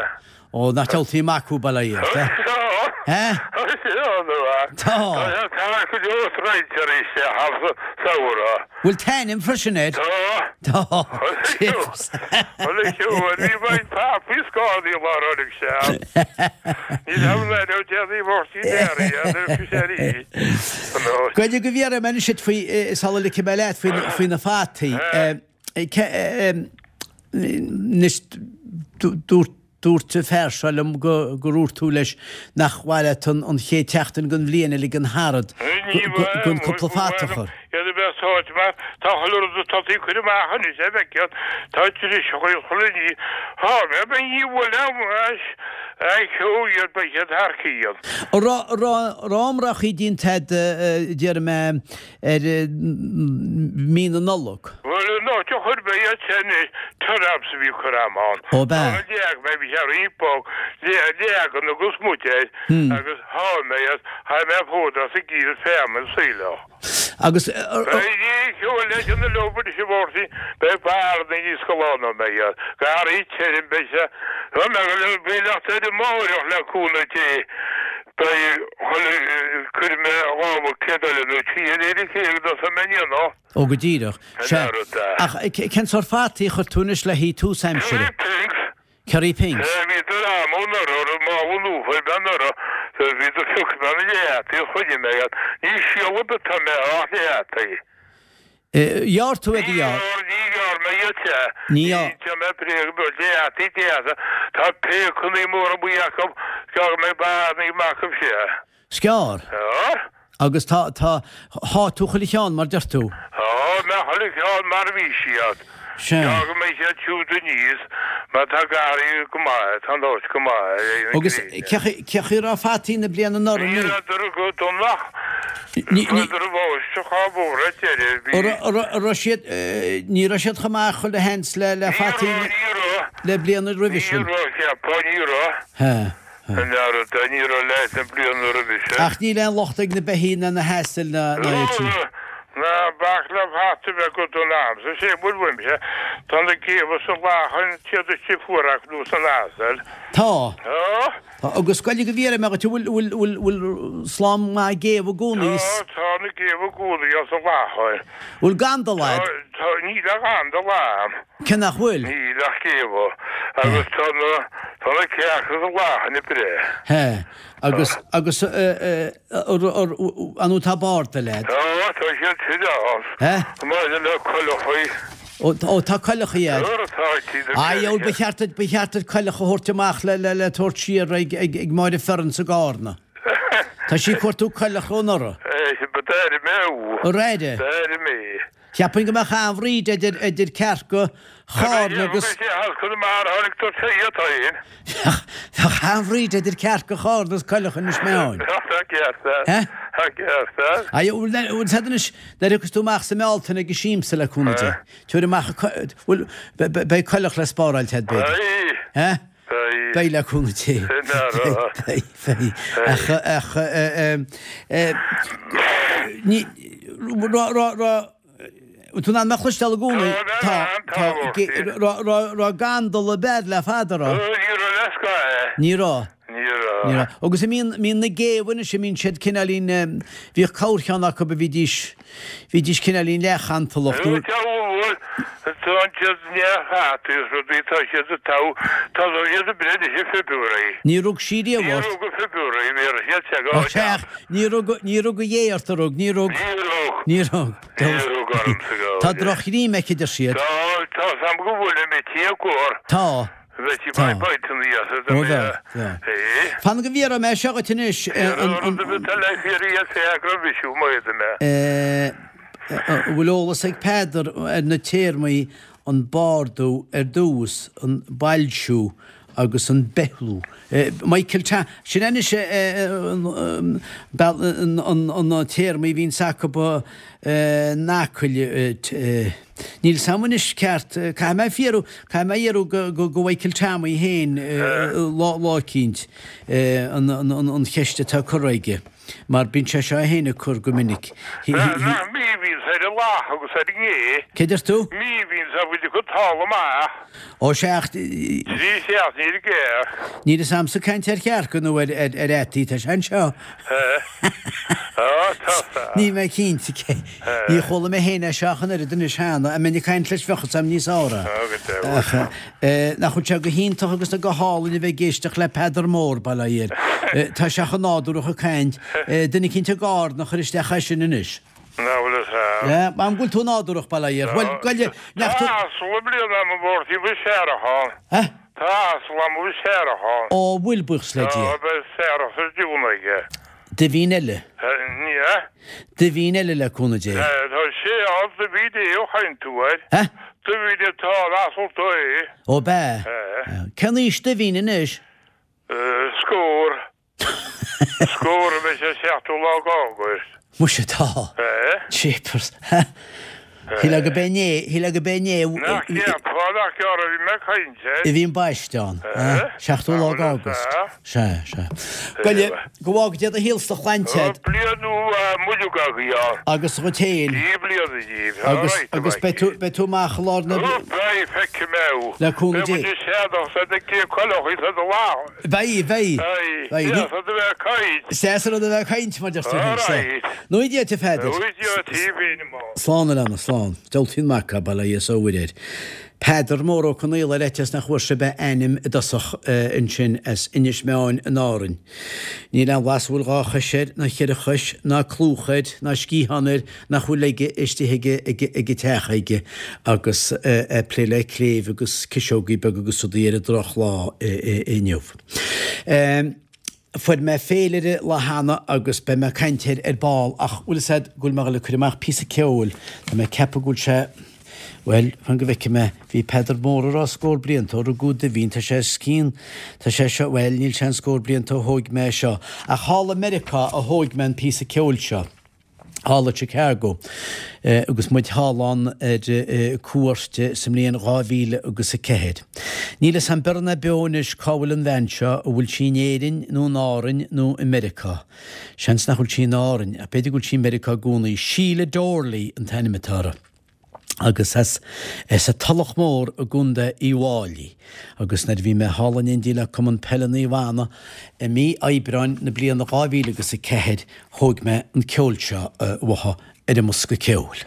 Ó, nach diabhaltaí mac thú, bail ó Dhia ort, eh? Tá. Eh? Tá sé ann, a. Tá. Tá sé thar go leor roinnt arís, sé, thar sa samhradh. Bhfuil t-ainm freisin air? Tá. Tá. Bhuel, bhí roinnt papaí scálaí lá roimh sé. Ní raibh le raibh déanaí bhortaí dearaí ar fiseirí. Goidé go bhfiafraí mé anois duit faoi, sula ligfidh mé leat, faoi na fataí. Anois, dúirt Dúirt an fear seo liom go gur dhúirt tú leis nach mhaith leat an chéad tseachtain den bhliain a ligean tharad gan cúpla fata a chur. Iad a bheith sáite mar tá chuile rud atá tú ag cur amach anois a bheith tá driseacha ag chuile ní. Thá mé ba ní bhfuil an cheo iad ba iad thar cionn. An raibh iomráchaí déanta a'd déarfaidh mé ar mí na Nollag. Bhuel, an áit a chuir mé iad sin i turnaps a bhí ag cur am ann. Ó, b'ea? Tá leag mé, bhí sé roinnt bog, leagan agus muid air agus sháigh mé iad, sháigh mé fód as an gcíor feamainn saoileach. Agus. Beidh ceol leis an leo anois a Mháirtín, beidh barna níos galánta ná mé iad, garraí tirim, beidh sé, beidh leacht ar an mbáireach le cúnamh Dé. Beidh chuile cuirfidh mé lámha céad eile nó trí eile ar a chéile go dtosóidh mé an aonach. Ó go díreach. An Sea. oiread de. Ach cén sórt fataí a chuir tú anois le haghaidh tús aimsire? Kerry Pinks. Kerry Pinks. Sea, bhíodar a'm anuraidh, ar mála luafa ar mé anuraidh, bhíodar phioc mé na leath-fhataí a choinnigh mé iad. Ní síol ar bith atá mé ach leath-fhataí. Ghearr tú iad a ghearr. Ní ghearr mé iad sea. Ní ghearr. Ní déan mé bréag beag leath-fhataí deasa. Tá péacannaí móra buí acu, gearr mé barnaí maith acu sea. 'S gearr. Gearr. Agus tá, tá, sháigh tú chuile cheann mar deir tú. Sháigh mé chuile cheann mar a bhí siad. Sea. Gearr go mbeidh siad siúd aníos mar tá garraí go maith, tá an áit go maith ar aon Agus ghréine. cé chaoi a raibh fataí na bliana anuraidh? Ní rabhadar go dona. Ní, ní. Chuadar i bhfáisteach á bhfógra deireadh, bhí. An raibh siad, ní raibh siad chomh maith chuile sheans le, le Ní fataí raibh, ní raibh. le bliana roimhe Ní sin. raibh, cheapfá, ní raibh. He, he. An oiread, ní raibh leis na bliana roimhe sin. Ach níl aon locht ag na beithígh ná na hasail ná, ná iad sin. Ná bac le fata a bheith go dona a'msa, sé bhfuil uaimse, tá na géabha sa lachan, siad istigh fuar acu nó san asal. Tá. Tá. Tá, agus goidé go bhfiafraí mé dhuit, an bhfuil, bhfuil, bhfuil, bhfuil slám maith géabha i gcónaí? Tá, tá na géabha i gcónaí as an láthair. Bhfuil gandal a'd? Tá, tá, níl ach gandal a'm. Cé nach bhfuil? Níl ach géabha. Agus tá na, tá na cearca sa láthair ag breith. He, agus, agus, eh, eh, ar, ar, an bhfuil tá bardail a'd? Tá, tá siad sin ann. He? Maidir le coileachaí. Ó, tá coileachaí a'd. Nuair atá siad ag Aye, ó, ba cheart duit, ba cheart duit coileach a thabhairt amach le, le, le tabhairt siar ag, ag, ag Máire Fearann sa gCarna. Tá sí ag cuartú coileach ó anuraidh. Eh, ba d'airigh mé thú. Ar airigh? D'airigh mé. Cheapfainn go mbeadh an-bhríd idir, idir cearca Chárna agus. Bheadh sé thall Conamara, tháinig tú sé iad féin. Bheadh, bheadh an-bhríd idir cearca Chárna agus coileach Inis Meáin. Tá ceart agat. Eh? Tá ceart agat. Aye, bhfuil, bhfuil siad anois, nuair a thiocfas tú amach sa mBealtaine ag an siamsa le cúnamh Dé, tabhair amach an co-, bhfuil, beidh coileach le spáráil agat b'fhéidir. Beidh. Eh? Beidh. Beidh le cúnamh Dé. Sin é rá. Beidh, beidh. Ach, ach, eh, eh, ní, rá, rá, rá, Tú in ann mé a chloisteáil i gcónaí? Tá, tá, tá. Raibh gandal ab fhearr le fada, raibh? Ní raibh le scath. Ní raibh. Ní raibh. Ní raibh. Agus a mbíonn, mbíonn na géabha anois, a mbíonn siad cineáilín, bhíodh corrcheann acu a bhídís, bhídís cineáilín leathchantalach nó. Tá bhuel, tá siad neamh-fhataí is rudaí, tá siad ag togha, tá siad ag breith anois i February. Ní rug sí riamh Ní ort. rug i February, bhí siad te go. Ó, sea, ní rug, ní rug a dhé ort, a rug, ní rug. Ní rug. Ní rug. Ní rug ormsa go. Tá drochghreim aici, deir siad. Tá, tá 's a'm go bhfuil i tí a gcóir. Tá. Bheadh sí Tá. bainte aníos a Ó bheadh, bheadh. É. Fan go bhfiafraí mé seo dhuit anois. An rud a bheadh le fiafraí as é go raibh mise amuigh mé. An bhfuil eolas ag Peadar ar na téarmaí an bardú ar dtús, an boilsiú. agus an beithliú. Michael Ta, sin anois na téarmaí a bhíonns acu in Acaill. Níl 's a'm anois ceart, caithfidh mé fiarú, caithfidh mé iarraidh go Mhichael Tommy féin lá eicínt an cheist atá curtha aige. Mar bíonn sé seo féin ag cur go minic. Nach míbhíonns ar an lath agus ar an ngé. Cé deir tú? Míbhíonns a bhfuil acu talamh maith. Ó sea ach. Trí seachtaine ar an gcearc. Níl fhios a'msa caint ar chearca nó ar fhataí, tá sé anseo. Á, tá sa. Níl mé cinnte cé. Ní chuala mé féin é seo ach an oiread anois cheana, dá mbeinn ag caint leis bheadh fhios a'm níos fearr é. Á, go deimhin. Ach. Nach bhfuil sé go hiontach agus go hálainn a bheith ag éisteacht le Peadar Mór, bail ó Dhia air. Tá sé chomh nádúrach ag caint. Duine eicínt ag Árainn a chuir isteach é sin anois. Nach bhfuil fhios a'm. Yeah, an bhfuil tú nádúrach, bail ó Dhia air. Bhuel, goile, nach tú. Tá asal i mbliana a'm i bport Uí Searacháin. Eh? Tá asal a'm i Searacháin. Ó, bhfuil, buíochas le Dia. Tá, beidh searrach sa dún aige. Duibhín eile. Ní hea. Duibhín eile le cúnamh Dé. Tá sé ann, Duibhín é a chaint tú air. Eh? Duibhín atá an asal do é. Ó b'ea? Eh. Cén aois Duibhín anois? Scór. Scór a bheidh sé seachtú lá d'Águst. Muise tá. Eh? Jeepers. Shílfeá go b'é inné, shílfeá go b'é inné. Nach gceapfá nach gearr a bhí mé ag caint air. A bhí an baiste ann. Seachtú lá d'Águst. Sea, sea. Goile, go bhfága Dia do shaol 's do shláinte agat. Bliain nua mhaith agaibh ann. Agus dhuit féin. Dia bliana díbh. Agus, agus beidh tú, beidh tú amach i lár na. Ó, beidh, feicfidh mé thú. Le cúnamh Dé. Beidh muid ag séanadh 's ag cé coileach is ag lá. Beidh, beidh. Beidh. Deas rud a bheith ag caint. Is deas an rud a bheith ag caint, mar deir tú féin. Alright. Nui Dia duit, a Pheadair. Nui Dia duit féin, a mham. Slán, a leana, slán. Diabhaltaí an mac é, bail ó Dhia is ó Mhuire air. Peadar Mór Ó Conaola ar fhaitíos nach bhfuair sibh a ainm i dtosach ansin as Inis Meáin in Árainn. Níl aon bhlas a bhfuil dhá chois air, ná cheithre chois, ná clúmh air, ná sciathán air nach bhfuil aige istigh ag an teach aige agus é ag plé le cléibh agus ciseogaí beaga agus rudaí ar an drochlá inniu. Fuair mé féilire lá cheana agus beidh mé ag caint air ar ball ach bhfuil fhios a'd go bhfuil mé ag dul ag cur amach píosa ceoil, tá mé ag ceapadh go bhfuil sé, bhuel, fan go bhfeicfidh mé, bhí Peadar Mór ag rá scór blianta ó rugadh Duibhín, tá sé os cionn, tá sé seo, bhuel, níl sé an scór blianta ó thóig mé é seo, ach thall i Meiriceá a thóig mé an píosa ceoil seo. thall i Chicago agus muid thall ann ar cuairt sa mbliain 2000 agus 4. Níl fhios a'm beo ná beo anois cá bhfuil an bhean seo, an bhfuil sí in Éirinn nó in Árainn nó i Meiriceá. Seans nach bhfuil sí in Árainn, ach b'fhéidir go bhfuil sí i Meiriceá i gcónaí. Sheila Doorley an t-ainm atá uirthi. agus as an Tulach Mhór i gContae Uíbh Fháilí agus nuair a bhí mé thall in éindí le Cumann Peile Naomh Anna i mí Aibreáin na bliana 2000 agus 4 thóig mé an ceol seo uaithi ar an mbosca ceoil.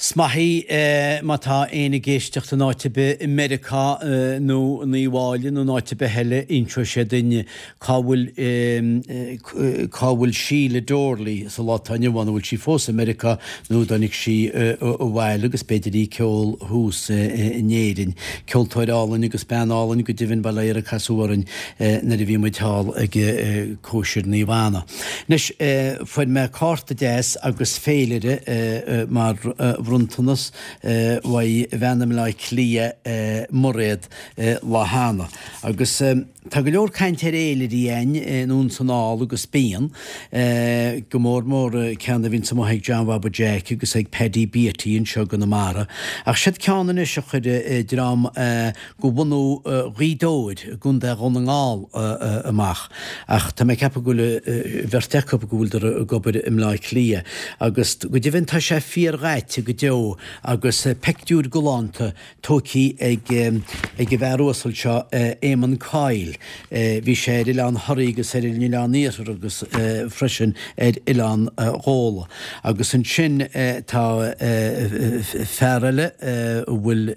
'S maith í má tá éinne ag éisteacht in áit ar bith i Meiriceá nó in Uíbh Fháilí nó in áit ar bith eile, inseoidh sé duinn cá bhfuil cá bhfuil Síle Doorley sa lá atá inniu ann, an bhfuil sí fós i Meiriceá nó an dtáinig sí abhaile agus b'fhéidir í ag ceol thuas in Éirinn. Ceoltóir álainn agus bean álainn go deimhin, bail ó Dhia uirthi a casadh orainn nuair a bhí muid thall ag cóisir Naomh Anna. Anois, fuair mé cárta deas agus féilire mar bhronntanas uaidh bhean i mBleá Cliath, Mairéad lá cheana agus. Tá go leor cainte ar fhéilirí a'inn anonn 's anall agus bíonn, go mór mór ceann a bhíonns amuigh ag John Bhaba Jeaic agus ag Paddy Beatty anseo i gConamara. Ach siod ceann anois a chuir dream go bhunadh Ghaoth Dobhair i gContae Dhún na nGall amach. Ach tá mé ag ceapadh go bhfuil bheirt acu go bhfuileadar ag obair i mBleá Cliath. Agus go deimhin tá sé fíor-dhaite go deo agus peictiúir galánta tógthaí ag an bhfear uasal seo, Éamonn Coyle. Bhí sé ar Oileán Thoraí agus ar an Oileán Iarthar agus freisin ar Oileán Ghabhla. Agus ansin tá fear eile a bhfuil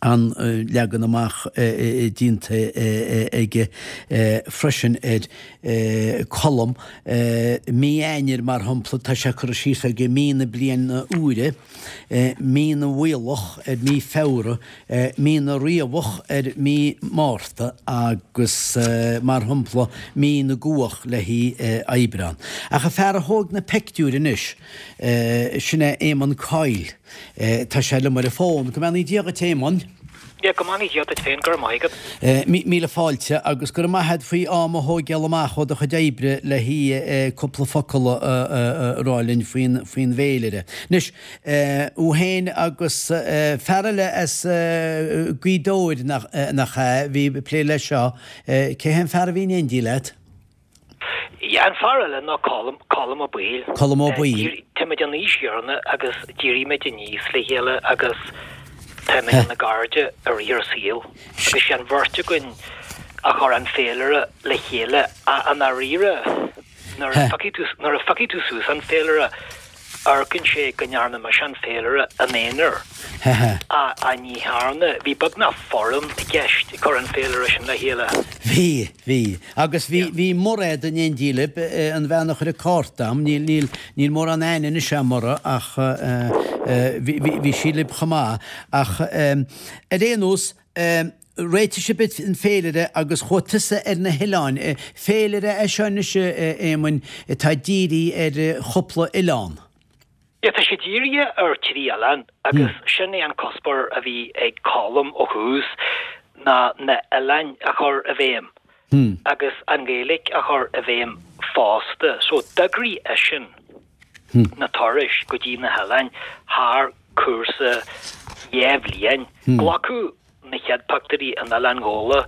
an leagan amach déanta aige freisin ar Colm. Mí Eanáir, mar shampla, tá sé curtha síos aige mí na bliana úire. Mí na bhFuíollach ar mí Feabhra, Mí na Riabhach ar mí Márta agus, mar shampla, Mí na gCuach le haghaidh Aibreán. Ach an fear a thóg na peictiúir anois, sin é Éamonn Coyle. Tá sé liom ar an bhfón. Go mbeannaí Dia dhuit, Éamonn. Yeah, go mbeannaí Dia duit féin, go raibh maith agat. Míle fáilte agus go raibh maith agat faoi am a thóigeáil amach ó do chuid oibre le haghaidh cúpla focal a rá linn faoin bhféilire. Anois, thú féin agus fear eile as Gaoth Dobhair nach ea, a bhí ag plé leis seo, cé hé an fear a bhí in éindí leat? Yeah, an fear eile ná Colm, Colm Ó Baoill. Colm Ó Baoill. Táimid an aois chéanna agus d'éirigh muid aníos le chéile agus táimid ina gcairde i rith ár saoil. Agus sé an bheirt againn a chuir an féilire le chéile. I ndáiríre, nuair a phiocfaidh tú, nuair a phiocfaidh tú suas an féilire, amharcann sé go ndearna mise an féilire im aonar. Ach ní dhearna. Bhí beagnach foireann i gceist ag cur an féilire sin le chéile. Bhí, bhí. Agus bhí, bhí Mairéad in éindí libh, an bhean a chuir an cárta a'm, níl, níl, níl mórán aithne anois a'm uirthi ach bhí, bhí, bhí sí libh chomh maith. Ach ar aon nós, réitigh sibh an féilire agus chuaigh tusa ar na hoileáin. Féilire é seo anois, a Éamoinn, atá dírithe ar chúpla oileán. Yeah, tá sé dírithe ar thrí oileán agus sin é an cuspóir a bhí ag Colm ó thús ná na hoileáin a chur i bhfeidhm agus an Ghaeilge a chur i bhfeidhm fosta. So d'eagraigh eisean na turais go dtí na hoileáin thar cúrsa 2 bhliain. Glacadh na chéad pictiúirí in Oileán Ghabhla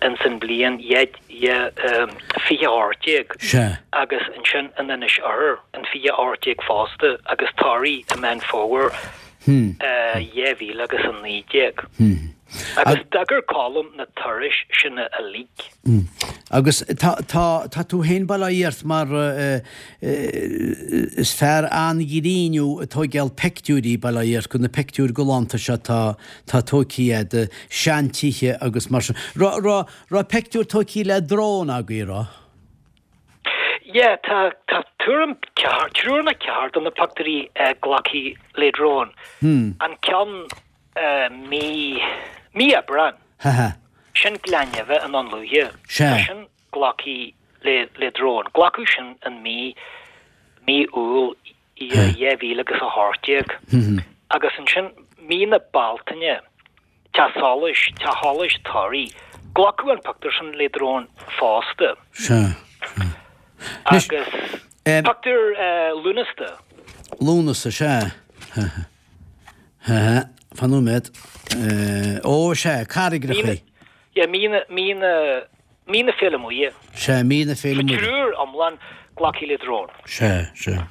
ins an bhliain 2018 agus ansin in Inis Oirthir in 2018 fosta agus Toraigh i Meán Fómhair 2000 agus 19. Agus d'eagair Colm na turais sin uilig. Agus tá, tá, tá tú féin bail ó Dhia ort mar is fear an-ghrinn thú ag tóigeáil peictiúirí, bail ó Dhia ort, go na peictiúir galánta seo atá, tá tóigthí a'd, seantithe agus mar sin. Raibh, raibh, raibh peictiúir tóigthí le drón agaibh, raibh? Yeah, tá, tá tuairim ceathair, triúr nó ceathair de na pictiúirí glactha le drón. An ceann mí, mí Aibreán. Sin Gleann Neimhe i nDún Lúiche. Tá sin glactha le, le drón. Glacadh sin in mí, mí Iúil. I 2000 agus 18. Agus ansin mí na Bealtaine, Teach Solais, Teach Solais Thoraí, glacadh an pictiúr sin le drón fosta. Sea. Agus pictiúr Lúnasa. Lúnasa, sea. Fan nóiméad. Ó, sea, carraigreacha. Yeah, mí na, mí na, mí na Féile Muire. Sea, mí na Féile Muire. Triúr iomlán glactha le drón. Sea, sea.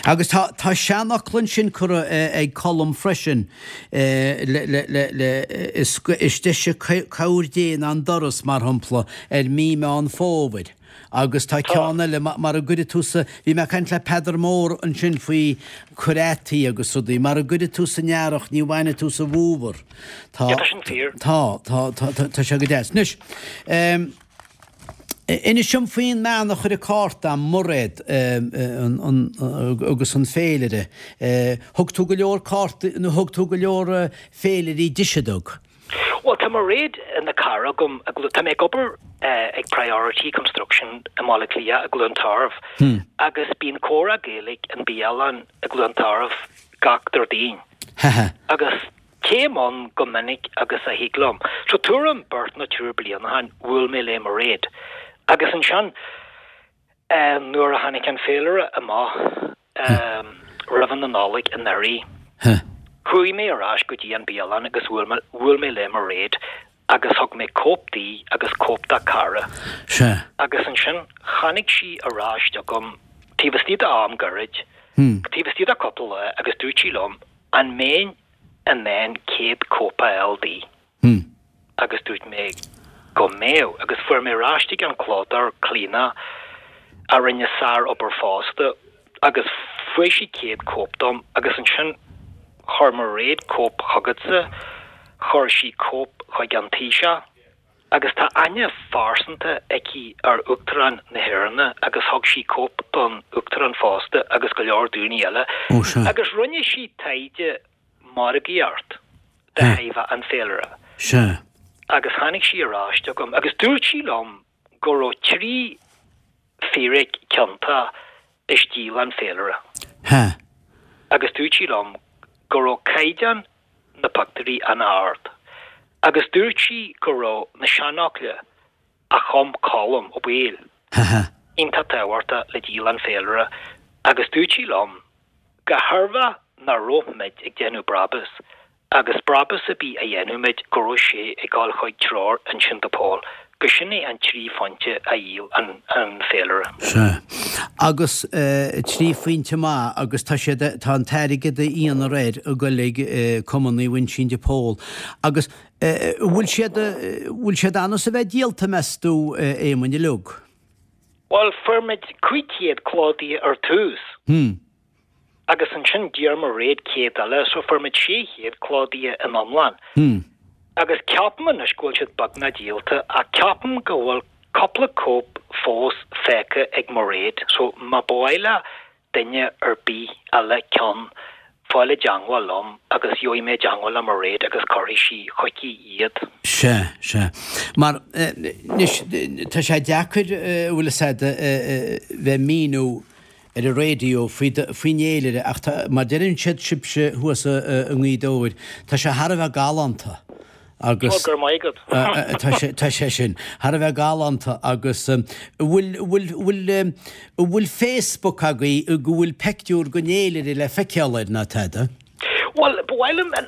Agus tá, tá seanfhocal ansin curtha ag Colm freisin, le, le, le, le, is, is deise cabhair Dé ná an doras, mar shampla, ar mí Meán Fómhair. Agus tá ceann eile, mara gcuirfidh tú sa, bhí mé ag caint le Peadar Mór ansin faoi cur fhataí agus rudaí, mara gcuirfidh tú san earrach ní bhainfidh tú sa bhfómhar. Tá, tá sin fíor. Tá, tá, tá, tá, tá sé go deas. Anois, ehm, inis dom faoin mbean a chuir an cárta a'm, Mairéad, ehm, an, an, agus an féilire. Eh, thug tú go leor cártaí, nó thug tú go leor féilirí dise dug? Bhuel, tá Mairéad ina cara agam, tá mé ag obair ag Priority Construction i mBaile Átha Cliath i gCluain Tarbh agus bíonn comhrá Gaeilge in bialann i gCluain Tarbh gach Déardaoin. Agus téim ann go minic agus a thig liom. So tuairim beirt nó triúr bliain ó shin bhuail mé le Mairéad agus ansin Nuair a tháinig an féilire amach roimh na Nollag anuraidh, chuaigh mé ar ais go dtí an bialann agus bhuail mé le Mairéad agus thug mé cóip di agus cóip dá cara. Agus ansin tháinig sí ar ais chugam taobh istigh de am gairid, taobh istigh de cúpla lá agus dúirt sí liom an mbeinn in ann 100 cóip a fháil di. agus dúirt mé go mbeadh, agus fuair mé ar ais chuig an clódóir, Clíona, a rinne sár-obair fosta, agus fuair sí 100 cóip dom, agus ansin chuir Mairéad cóip chugatsa, chuir sí cóip chuig an Taoiseach, agus tá aithne phearsanta aici ar Uachtarán na hÉireann agus thug sí cóip don Uachtarán fosta agus go leor daoine eile, agus rinne sí taighde margaíocht de thaobh an féilire. Sea. Agus tháinig sí ar ais chugam agus dúirt sí liom go raibh 3 fíric ciontach i stíl an féilire. Sea. Agus dúirt sí liom go raibh caighdeán na pictiúirí an-ard. Agus dúirt sí go raibh na seanfhocla a chum Colm Ó Baoill iontach tábhachtach le díol an féilire agus dúirt sí liom go tairbheach nach raibh muid ag déanamh brabús agus brabús ar bith a dhéanadh muid go raibh sé ag dul chuig Treoir Uinsinn de Pól, go sin é an 3 phointe a dhíol an féilire. Sea. Agus 3 phointe maith agus tá siad, tá an t-airgead a dhéanfar air ag dul ag Cumann Naomh Uinseann de Pól. Agus bhfuil siad, bhfuil siad ann is a bheith díolta meas tú, a Éamoinn uilig? Bhuel, fuair muid 500 clódaithe ar tús. Hmm. Agus ansin d'iarr Mairéad 100 eile, so fuair muid 600 clódaithe in iomlán. Hmm. Agus ceapaim anois go bhfuil siad beagnach díolta, ach ceapaim go bhfuil cúpla cóip fós fágtha ag Mairéad, so má ba mhaith le duine ar bith eile ceann, fáil i dteangmháil liom agus gheobhaidh mé i dteangmháil le Mairéad agus cuirfidh sí chuici iad. Sea, sea. Mar, anois, tá sé deacair, an bhfuil fhios a'd, bheith ag míniú ar an raidió faoi, faoin fhéilire ach tá, mar deireann siad sibhse thuas i nGaoth Dobhair, tá sé thar a bheith galánta. Agus. Ó, go raibh maith agat. Tá sé, tá sé sin thar a bheith galánta agus an bhfuil, bhfuil, bhfuil, an bhfuil Facebook agaibh go bhfuil peictiúr den fhéilire le feiceáil air ná tada? Bhuel, ba mhaith liom an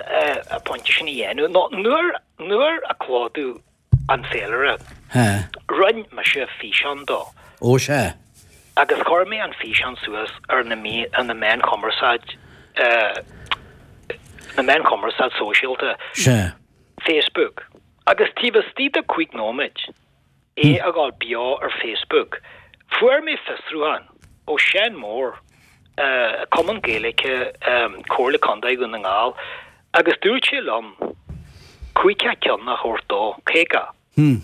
pointe sin a dhéanamh. Nó nuair, nuair a clódú an féilire, rinne mise físeán dó. Ó sea. Agus chuir mé an físeán suas ar na, ar na meáin chumarsáid, na meáin chumarsáid sóisialta. Sea. Facebook. Agus taobh istigh de chúig nóiméid, é a dhul beo ar Facebook, fuair mé fiosrúchán ó Seán Mór, Cumann Gaeilge Comhairle Contae Dhún na nGall, agus dúirt sé liom 50 ceann a thabhairt dó, 50.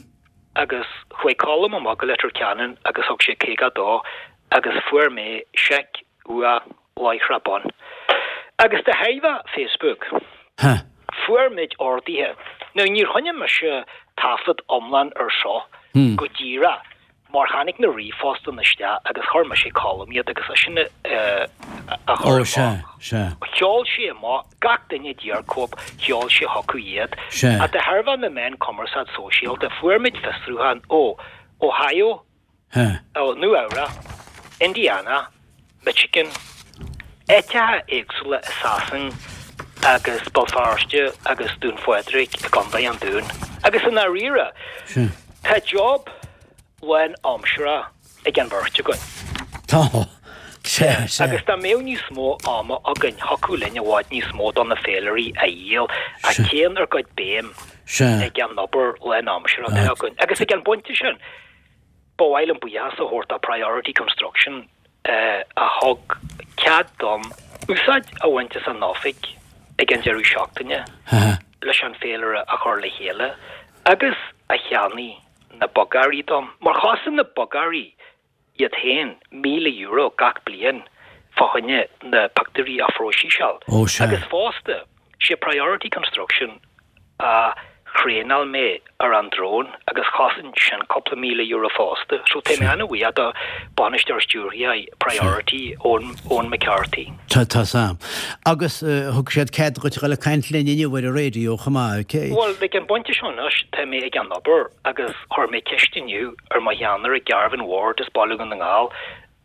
Agus chuaigh Colm amach go Leitir Ceanainn agus thug sé 50 dó agus fuair mé seic uaidh láithreach bonn. Agus de thairbhe Facebook, fuair muid orduithe. Now níor choinnigh mise taifead iomlán ar seo go díreach mar tháinig na ríomhphostanna isteach agus chuir mise Colm iad agus eisean a. a chur amach. Sheol sé amach, gach duine a d'iarr cóip, sheol sé chucu iad. Ach de thairbhe na meán cumarsáid sóisialta, fuair muid fiosrúchán ó Ohio, ó Nua Eabhrac, Indiana, Michigan, áiteacha éagsúla i Sasain agus Béal Feirste agus Dún Phádraig i gContae an Dúin. Agus i ndáiríre, tá job lán-aimseartha ag an bheirt againn. Tá. Sea, sea. Agus dá mbeadh níos mó ama againn, thiocfadh linn i bhfad níos mó do na féilirí a dhíol, ach téann ár gcuid béim ag an obair lán-aimseartha atá againn. Agus ag an bpointe sin, ba mhaith liom buíochas a thabhairt do Priority Construction a thug cead dom úsáid a bhaint as a n-oifig ag an deireadh seachtaine leis an féilire a chur le chéile agus a cheannaigh na bogearraí dom, mar chosain na bogearraí iad féin €1,000 gach bliain fá choinne na pictiúirí a phróiseáil. Ó, sea. Agus fosta, sé Priority Construction a thraenáil mé ar an drón agus chosain sin cúpla €1,000 fosta. So tá mé an-bhuíoch do Bainisteoir Stiúrtha Priority, Eoin, Eoin McCarthy. Tá, tá 's a'm. Agus thug siad cead dhuit a dhul ag caint linn inniu ar an raidió chomh maith. Bhuel, ag an bpointe seo anois, tá mé ag an obair agus chuir mé ceist inniu ar mo cheannaire Garvin Ward as Baile Dhún na nGall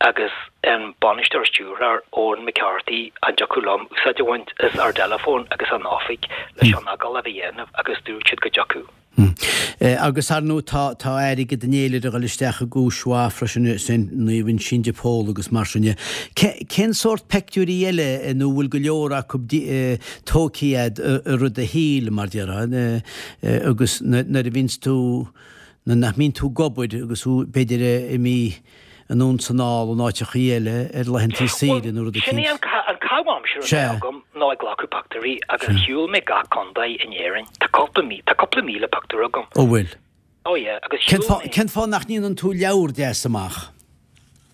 agus an Bainisteoir Stiúrthóir Eoin McCarthy an dtiocfadh liom úsáid a bhaint as ár dteileafón agus an oifig leis an agallamh a dhéanamh agus dúirt siad go dtiocfadh. Agus ar ndóigh tá tá airgead an fhéilire ag dul isteach i gcúis mhaith freisin i Saint Naomh Uinseann de Pól agus mar sin de. Cén sórt peictiúirí eile nó bhfuil go leor acu tógtha a'd i rith do shaoil mar déarfá agus nuair a bhíonns tú nuair nach mbíonn tú ag obair agus thú b'fhéidir imithe anonn 's anall in áiteachaí eile ar laethantaí saoire nó rud Sin é an an caitheamh aimsire atá agam ná ag glacadh pictiúirí agus shiúil mé gach contae in Éirinn. Tá cúpla tá cúpla 1,000 pictiúr agam. Ó bhfuil? Oh yeah, agus shiúil mé. Cén fáth nach ndéanann tú leabhar deas amach?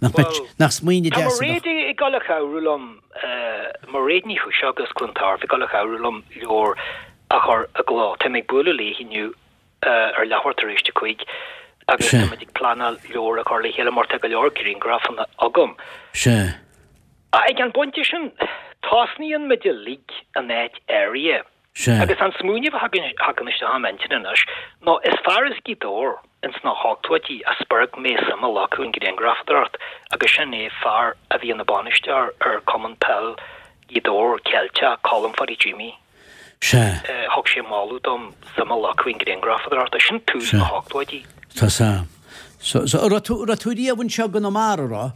Nach mbeadh, nach smaoineamh deas a bheadh. Tá Mairéad ag dul a chabhrú liom, Mairéad Ní Chúiseach as Cluain Tairbh ag dul a chabhrú liom leabhar a chur i gcló. Tá mé ag bualadh léi inniu ar leathuair tar éis a 5 agus tá muid ag pleanáil leabhar a chur le chéile mar tá go leor grianghrafanna agam. Sea. Ag an bpointe sin, tosnaíonn muid uilig in áit áirithe. Sea. Agus an smaoineamh a thagann isteach im intinn anois ná is fear as Gaoth Dobhair ins na hochtóidí a spreag mé suim a ghlacadh i ngrianghrafadóireacht agus sin é fear a bhí ina bainisteoir ar Cumann Peil Ghaoth Dobhair Ceilteach, Colm Pháidí Jimí. Sea. Thug sé moladh dom suim a ghlacadh i ngrianghrafadóireacht. Sin tús na hochtóidí. Tá 's a'm. So, so, raibh tú, raibh tú riamh anseo i gConamara, raibh?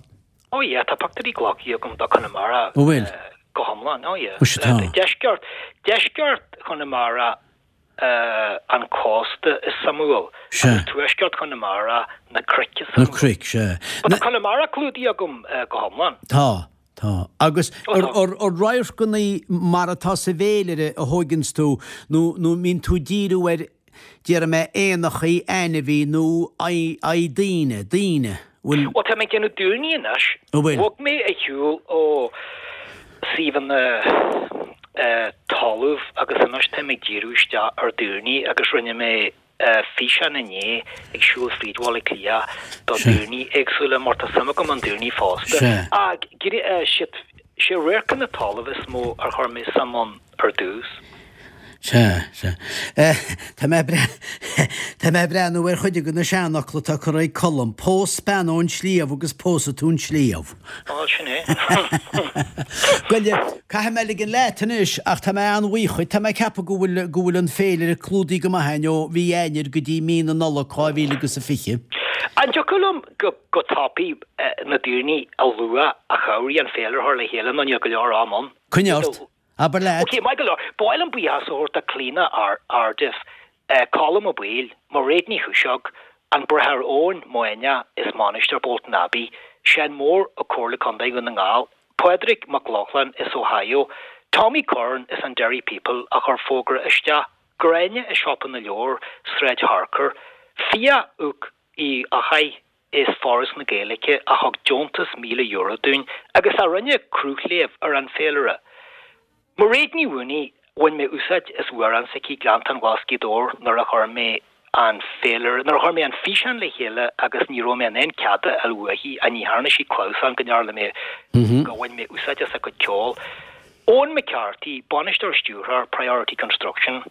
Oh yeah, tá pictiúirí glactha agam do Chonamara. Ó bhfuil? Go hiomlán, oh yeah. Ó sea, tá. Deisceart, deisceart Chonamara, an cósta is suimiúil. Sea. Agus tuaisceart Chonamara, na cnoic is suimiúil. Na cnoic, sea. But tá Conamara clúdaithe agam go hiomlán. Tá. Tá. Agus ar radharcanna mar atá sa bhféilire a thóigeanns tú nó nó mbíonn tú díriú ar, déarfaidh mé, éanachaí, ainmhí nó aghaidh daoine, daoine, bhfuil. Bhuel, tá mé ag déanamh daoine anois. An bhfuil? Bhog mé ar shiúl ó suíomhanna talaimh agus anois tá mé ag díriú isteach ar daoine agus rinne mé físeán inné ag siúl fríd Bhaile Átha Cliath do daoine éagsúla mar tá suim agam i ndaoine fosta. Ach sé radharcanna talaimh is mó ar chuir mé suim ann ar dtús. Sea, sea. Tá mé tá mé ag breathnú ar chuid de na seanfhocla atá curtha ag Colm, Pós bean ón sliabh agus pósfaidh tú an sliabh. Á, sin é. Bhuel, caithfidh mé ligean leat anois, ach tá mé an-bhuíoch dhuit. Tá mé ag ceapadh go bhfuil, go bhfuil an féilire clúdaithe go maith againn ó mhí Eanáir go dtí mí na Nollag 2020. An dtiocfadh liom go, go tapaidh na daoine a lua a chabhraigh an féilire a chur le chéile nó níl go leor am ann? Coinnigh ort. Abair leat. Ok, maith go leor. Ba mhaith liom buíochas a thabhairt do Clíona Ardiff, Colm Ó Baoill, Mairéad Ní Chúiseog, An Bráthair Eoin Maonaigh as Mainistir Bolton Abbey, Seán Mór ó Comhairle Contae Dhún na nGall, Pádraig Mac Lochlainn as Ohio, Tommy Curran as an Derry People a chuir fógra isteach, Gráinne i Siopa na Leabhar, Sráid Harcourt, Fiadh Uc Uí Eachaidh as Foras na Gaeilge a thug deontas €1,000 dúinn agus a rinne cruthléamh ar an bhféilire. Mairéad Ní Mhaonaigh, bhain mé úsáid as amhrán s'aici Gleanntán Ghlas Ghaoth Dobhair nuair a chuir mé. an féilire, nuair a chuir mé an físeán le chéile agus ní raibh mé in ann cead a fháil uaithi ach ní dhearna sí clamhsán go ndearna mé, go bhain mé úsáid as a cuid ceoil. Eoin McCarthy, bainisteoir stiúrthóir Priority Construction,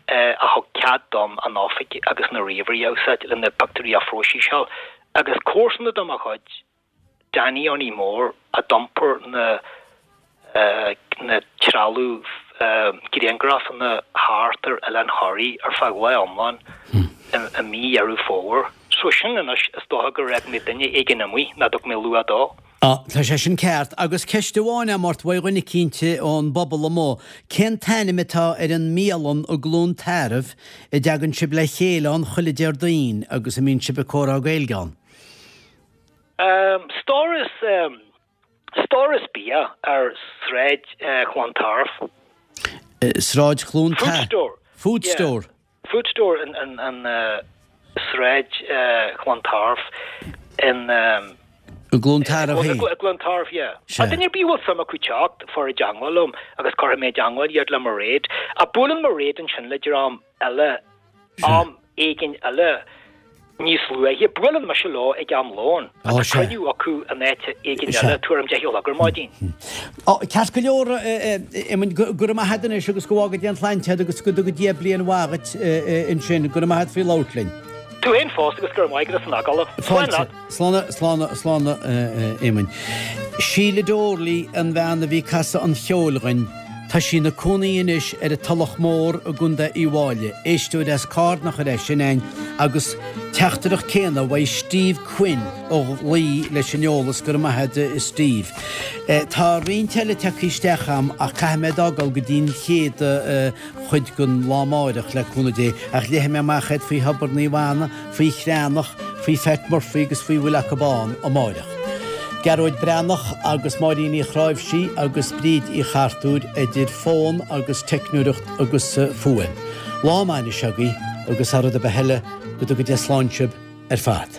a thug cead dom an oifig agus na ríomhairí a úsáid le na pictiúirí a phróiseáil agus comharsana de mo chuid, Danny Johnny Mór a d'iompair na na trealamh grianghrafanna thart ar Oileán Thoraí ar feadh lá iomlán i mí Dheireadh Fómhair. So sin anois is dócha gur fhág mé duine éigin amuigh nach dtug mé lua dó. Á, tá sé sin ceart. Agus ceist amháin agam ort uaidh dhuine eicínt ón bpobal amuigh, cén t-ainm atá ar an mbialann i gCluain Tarbh a dtagann sibh le chéile ann chuile Déardaoin agus a mbíonn sibh ag comhrá Gaeilge ann? Stóras Stóras bia ar Sráid Chlontairbh. Sráid Chluain Food Store. Food Store. Food Store in in Sráid Chlontairbh in I gCluain Tarbh féin. I gCluain Tarbh, yeah. Sea. Duine ar bith a bhfuil suim acu teacht, fáil i dteangmháil liom agus cuirfidh mé i dteangmháil iad le Mairéad. Ach buaileann Mairéad ansin le dream eile am éigin eile níos luaithe. Buaileann mise leo ag am lóin. Tá cruinniú acu in áit éigin eile tuairim 10 a chlog ar maidin. Ceart go leor, Éamoinn, go raibh maith agat anois agus go bhfága Dia an tsláinte agat agus go dtuga Dia bliain mhaith dhuit ansin. Go raibh maith agat faoi labhairt linn. Tú féin fosta agus go raibh maith agat as an agallamh. Slán leat. Slán, slán, slán, a Éamoinn. Síle Doorley an bhean a bhí ag casadh an cheoil dhuinn. Tá sí ina cónaí anois ar an Tulach Mór i gContae Uíbh Fháilí. Éisteoir as Carna a chuir é sin a'inn agus teachtaireacht céanna uaidh Steve Quinn ó Laoi leis an eolas, go raibh maith a'd a Steve. Tá roinnt eile tagtha isteach a'm ach caithfidh mé d'fhágáil go dtí an chéad chuid den lá amáireach le cúnamh Dé ach léifidh mé amach iad faoi Thobar Naomh Anna, faoi Chreanach, faoi Phat Murphy agus faoi bhfuil acu ann amáireach. Gearóid Breathnach agus Máirín Uí Chráimhsí agus Bríd Uí Chartúir idir fón agus teicneoireacht agus fuaim. Lá maith anois agaibh agus thar rud ar bith eile, go dtuga Dia slán sibh ar fad.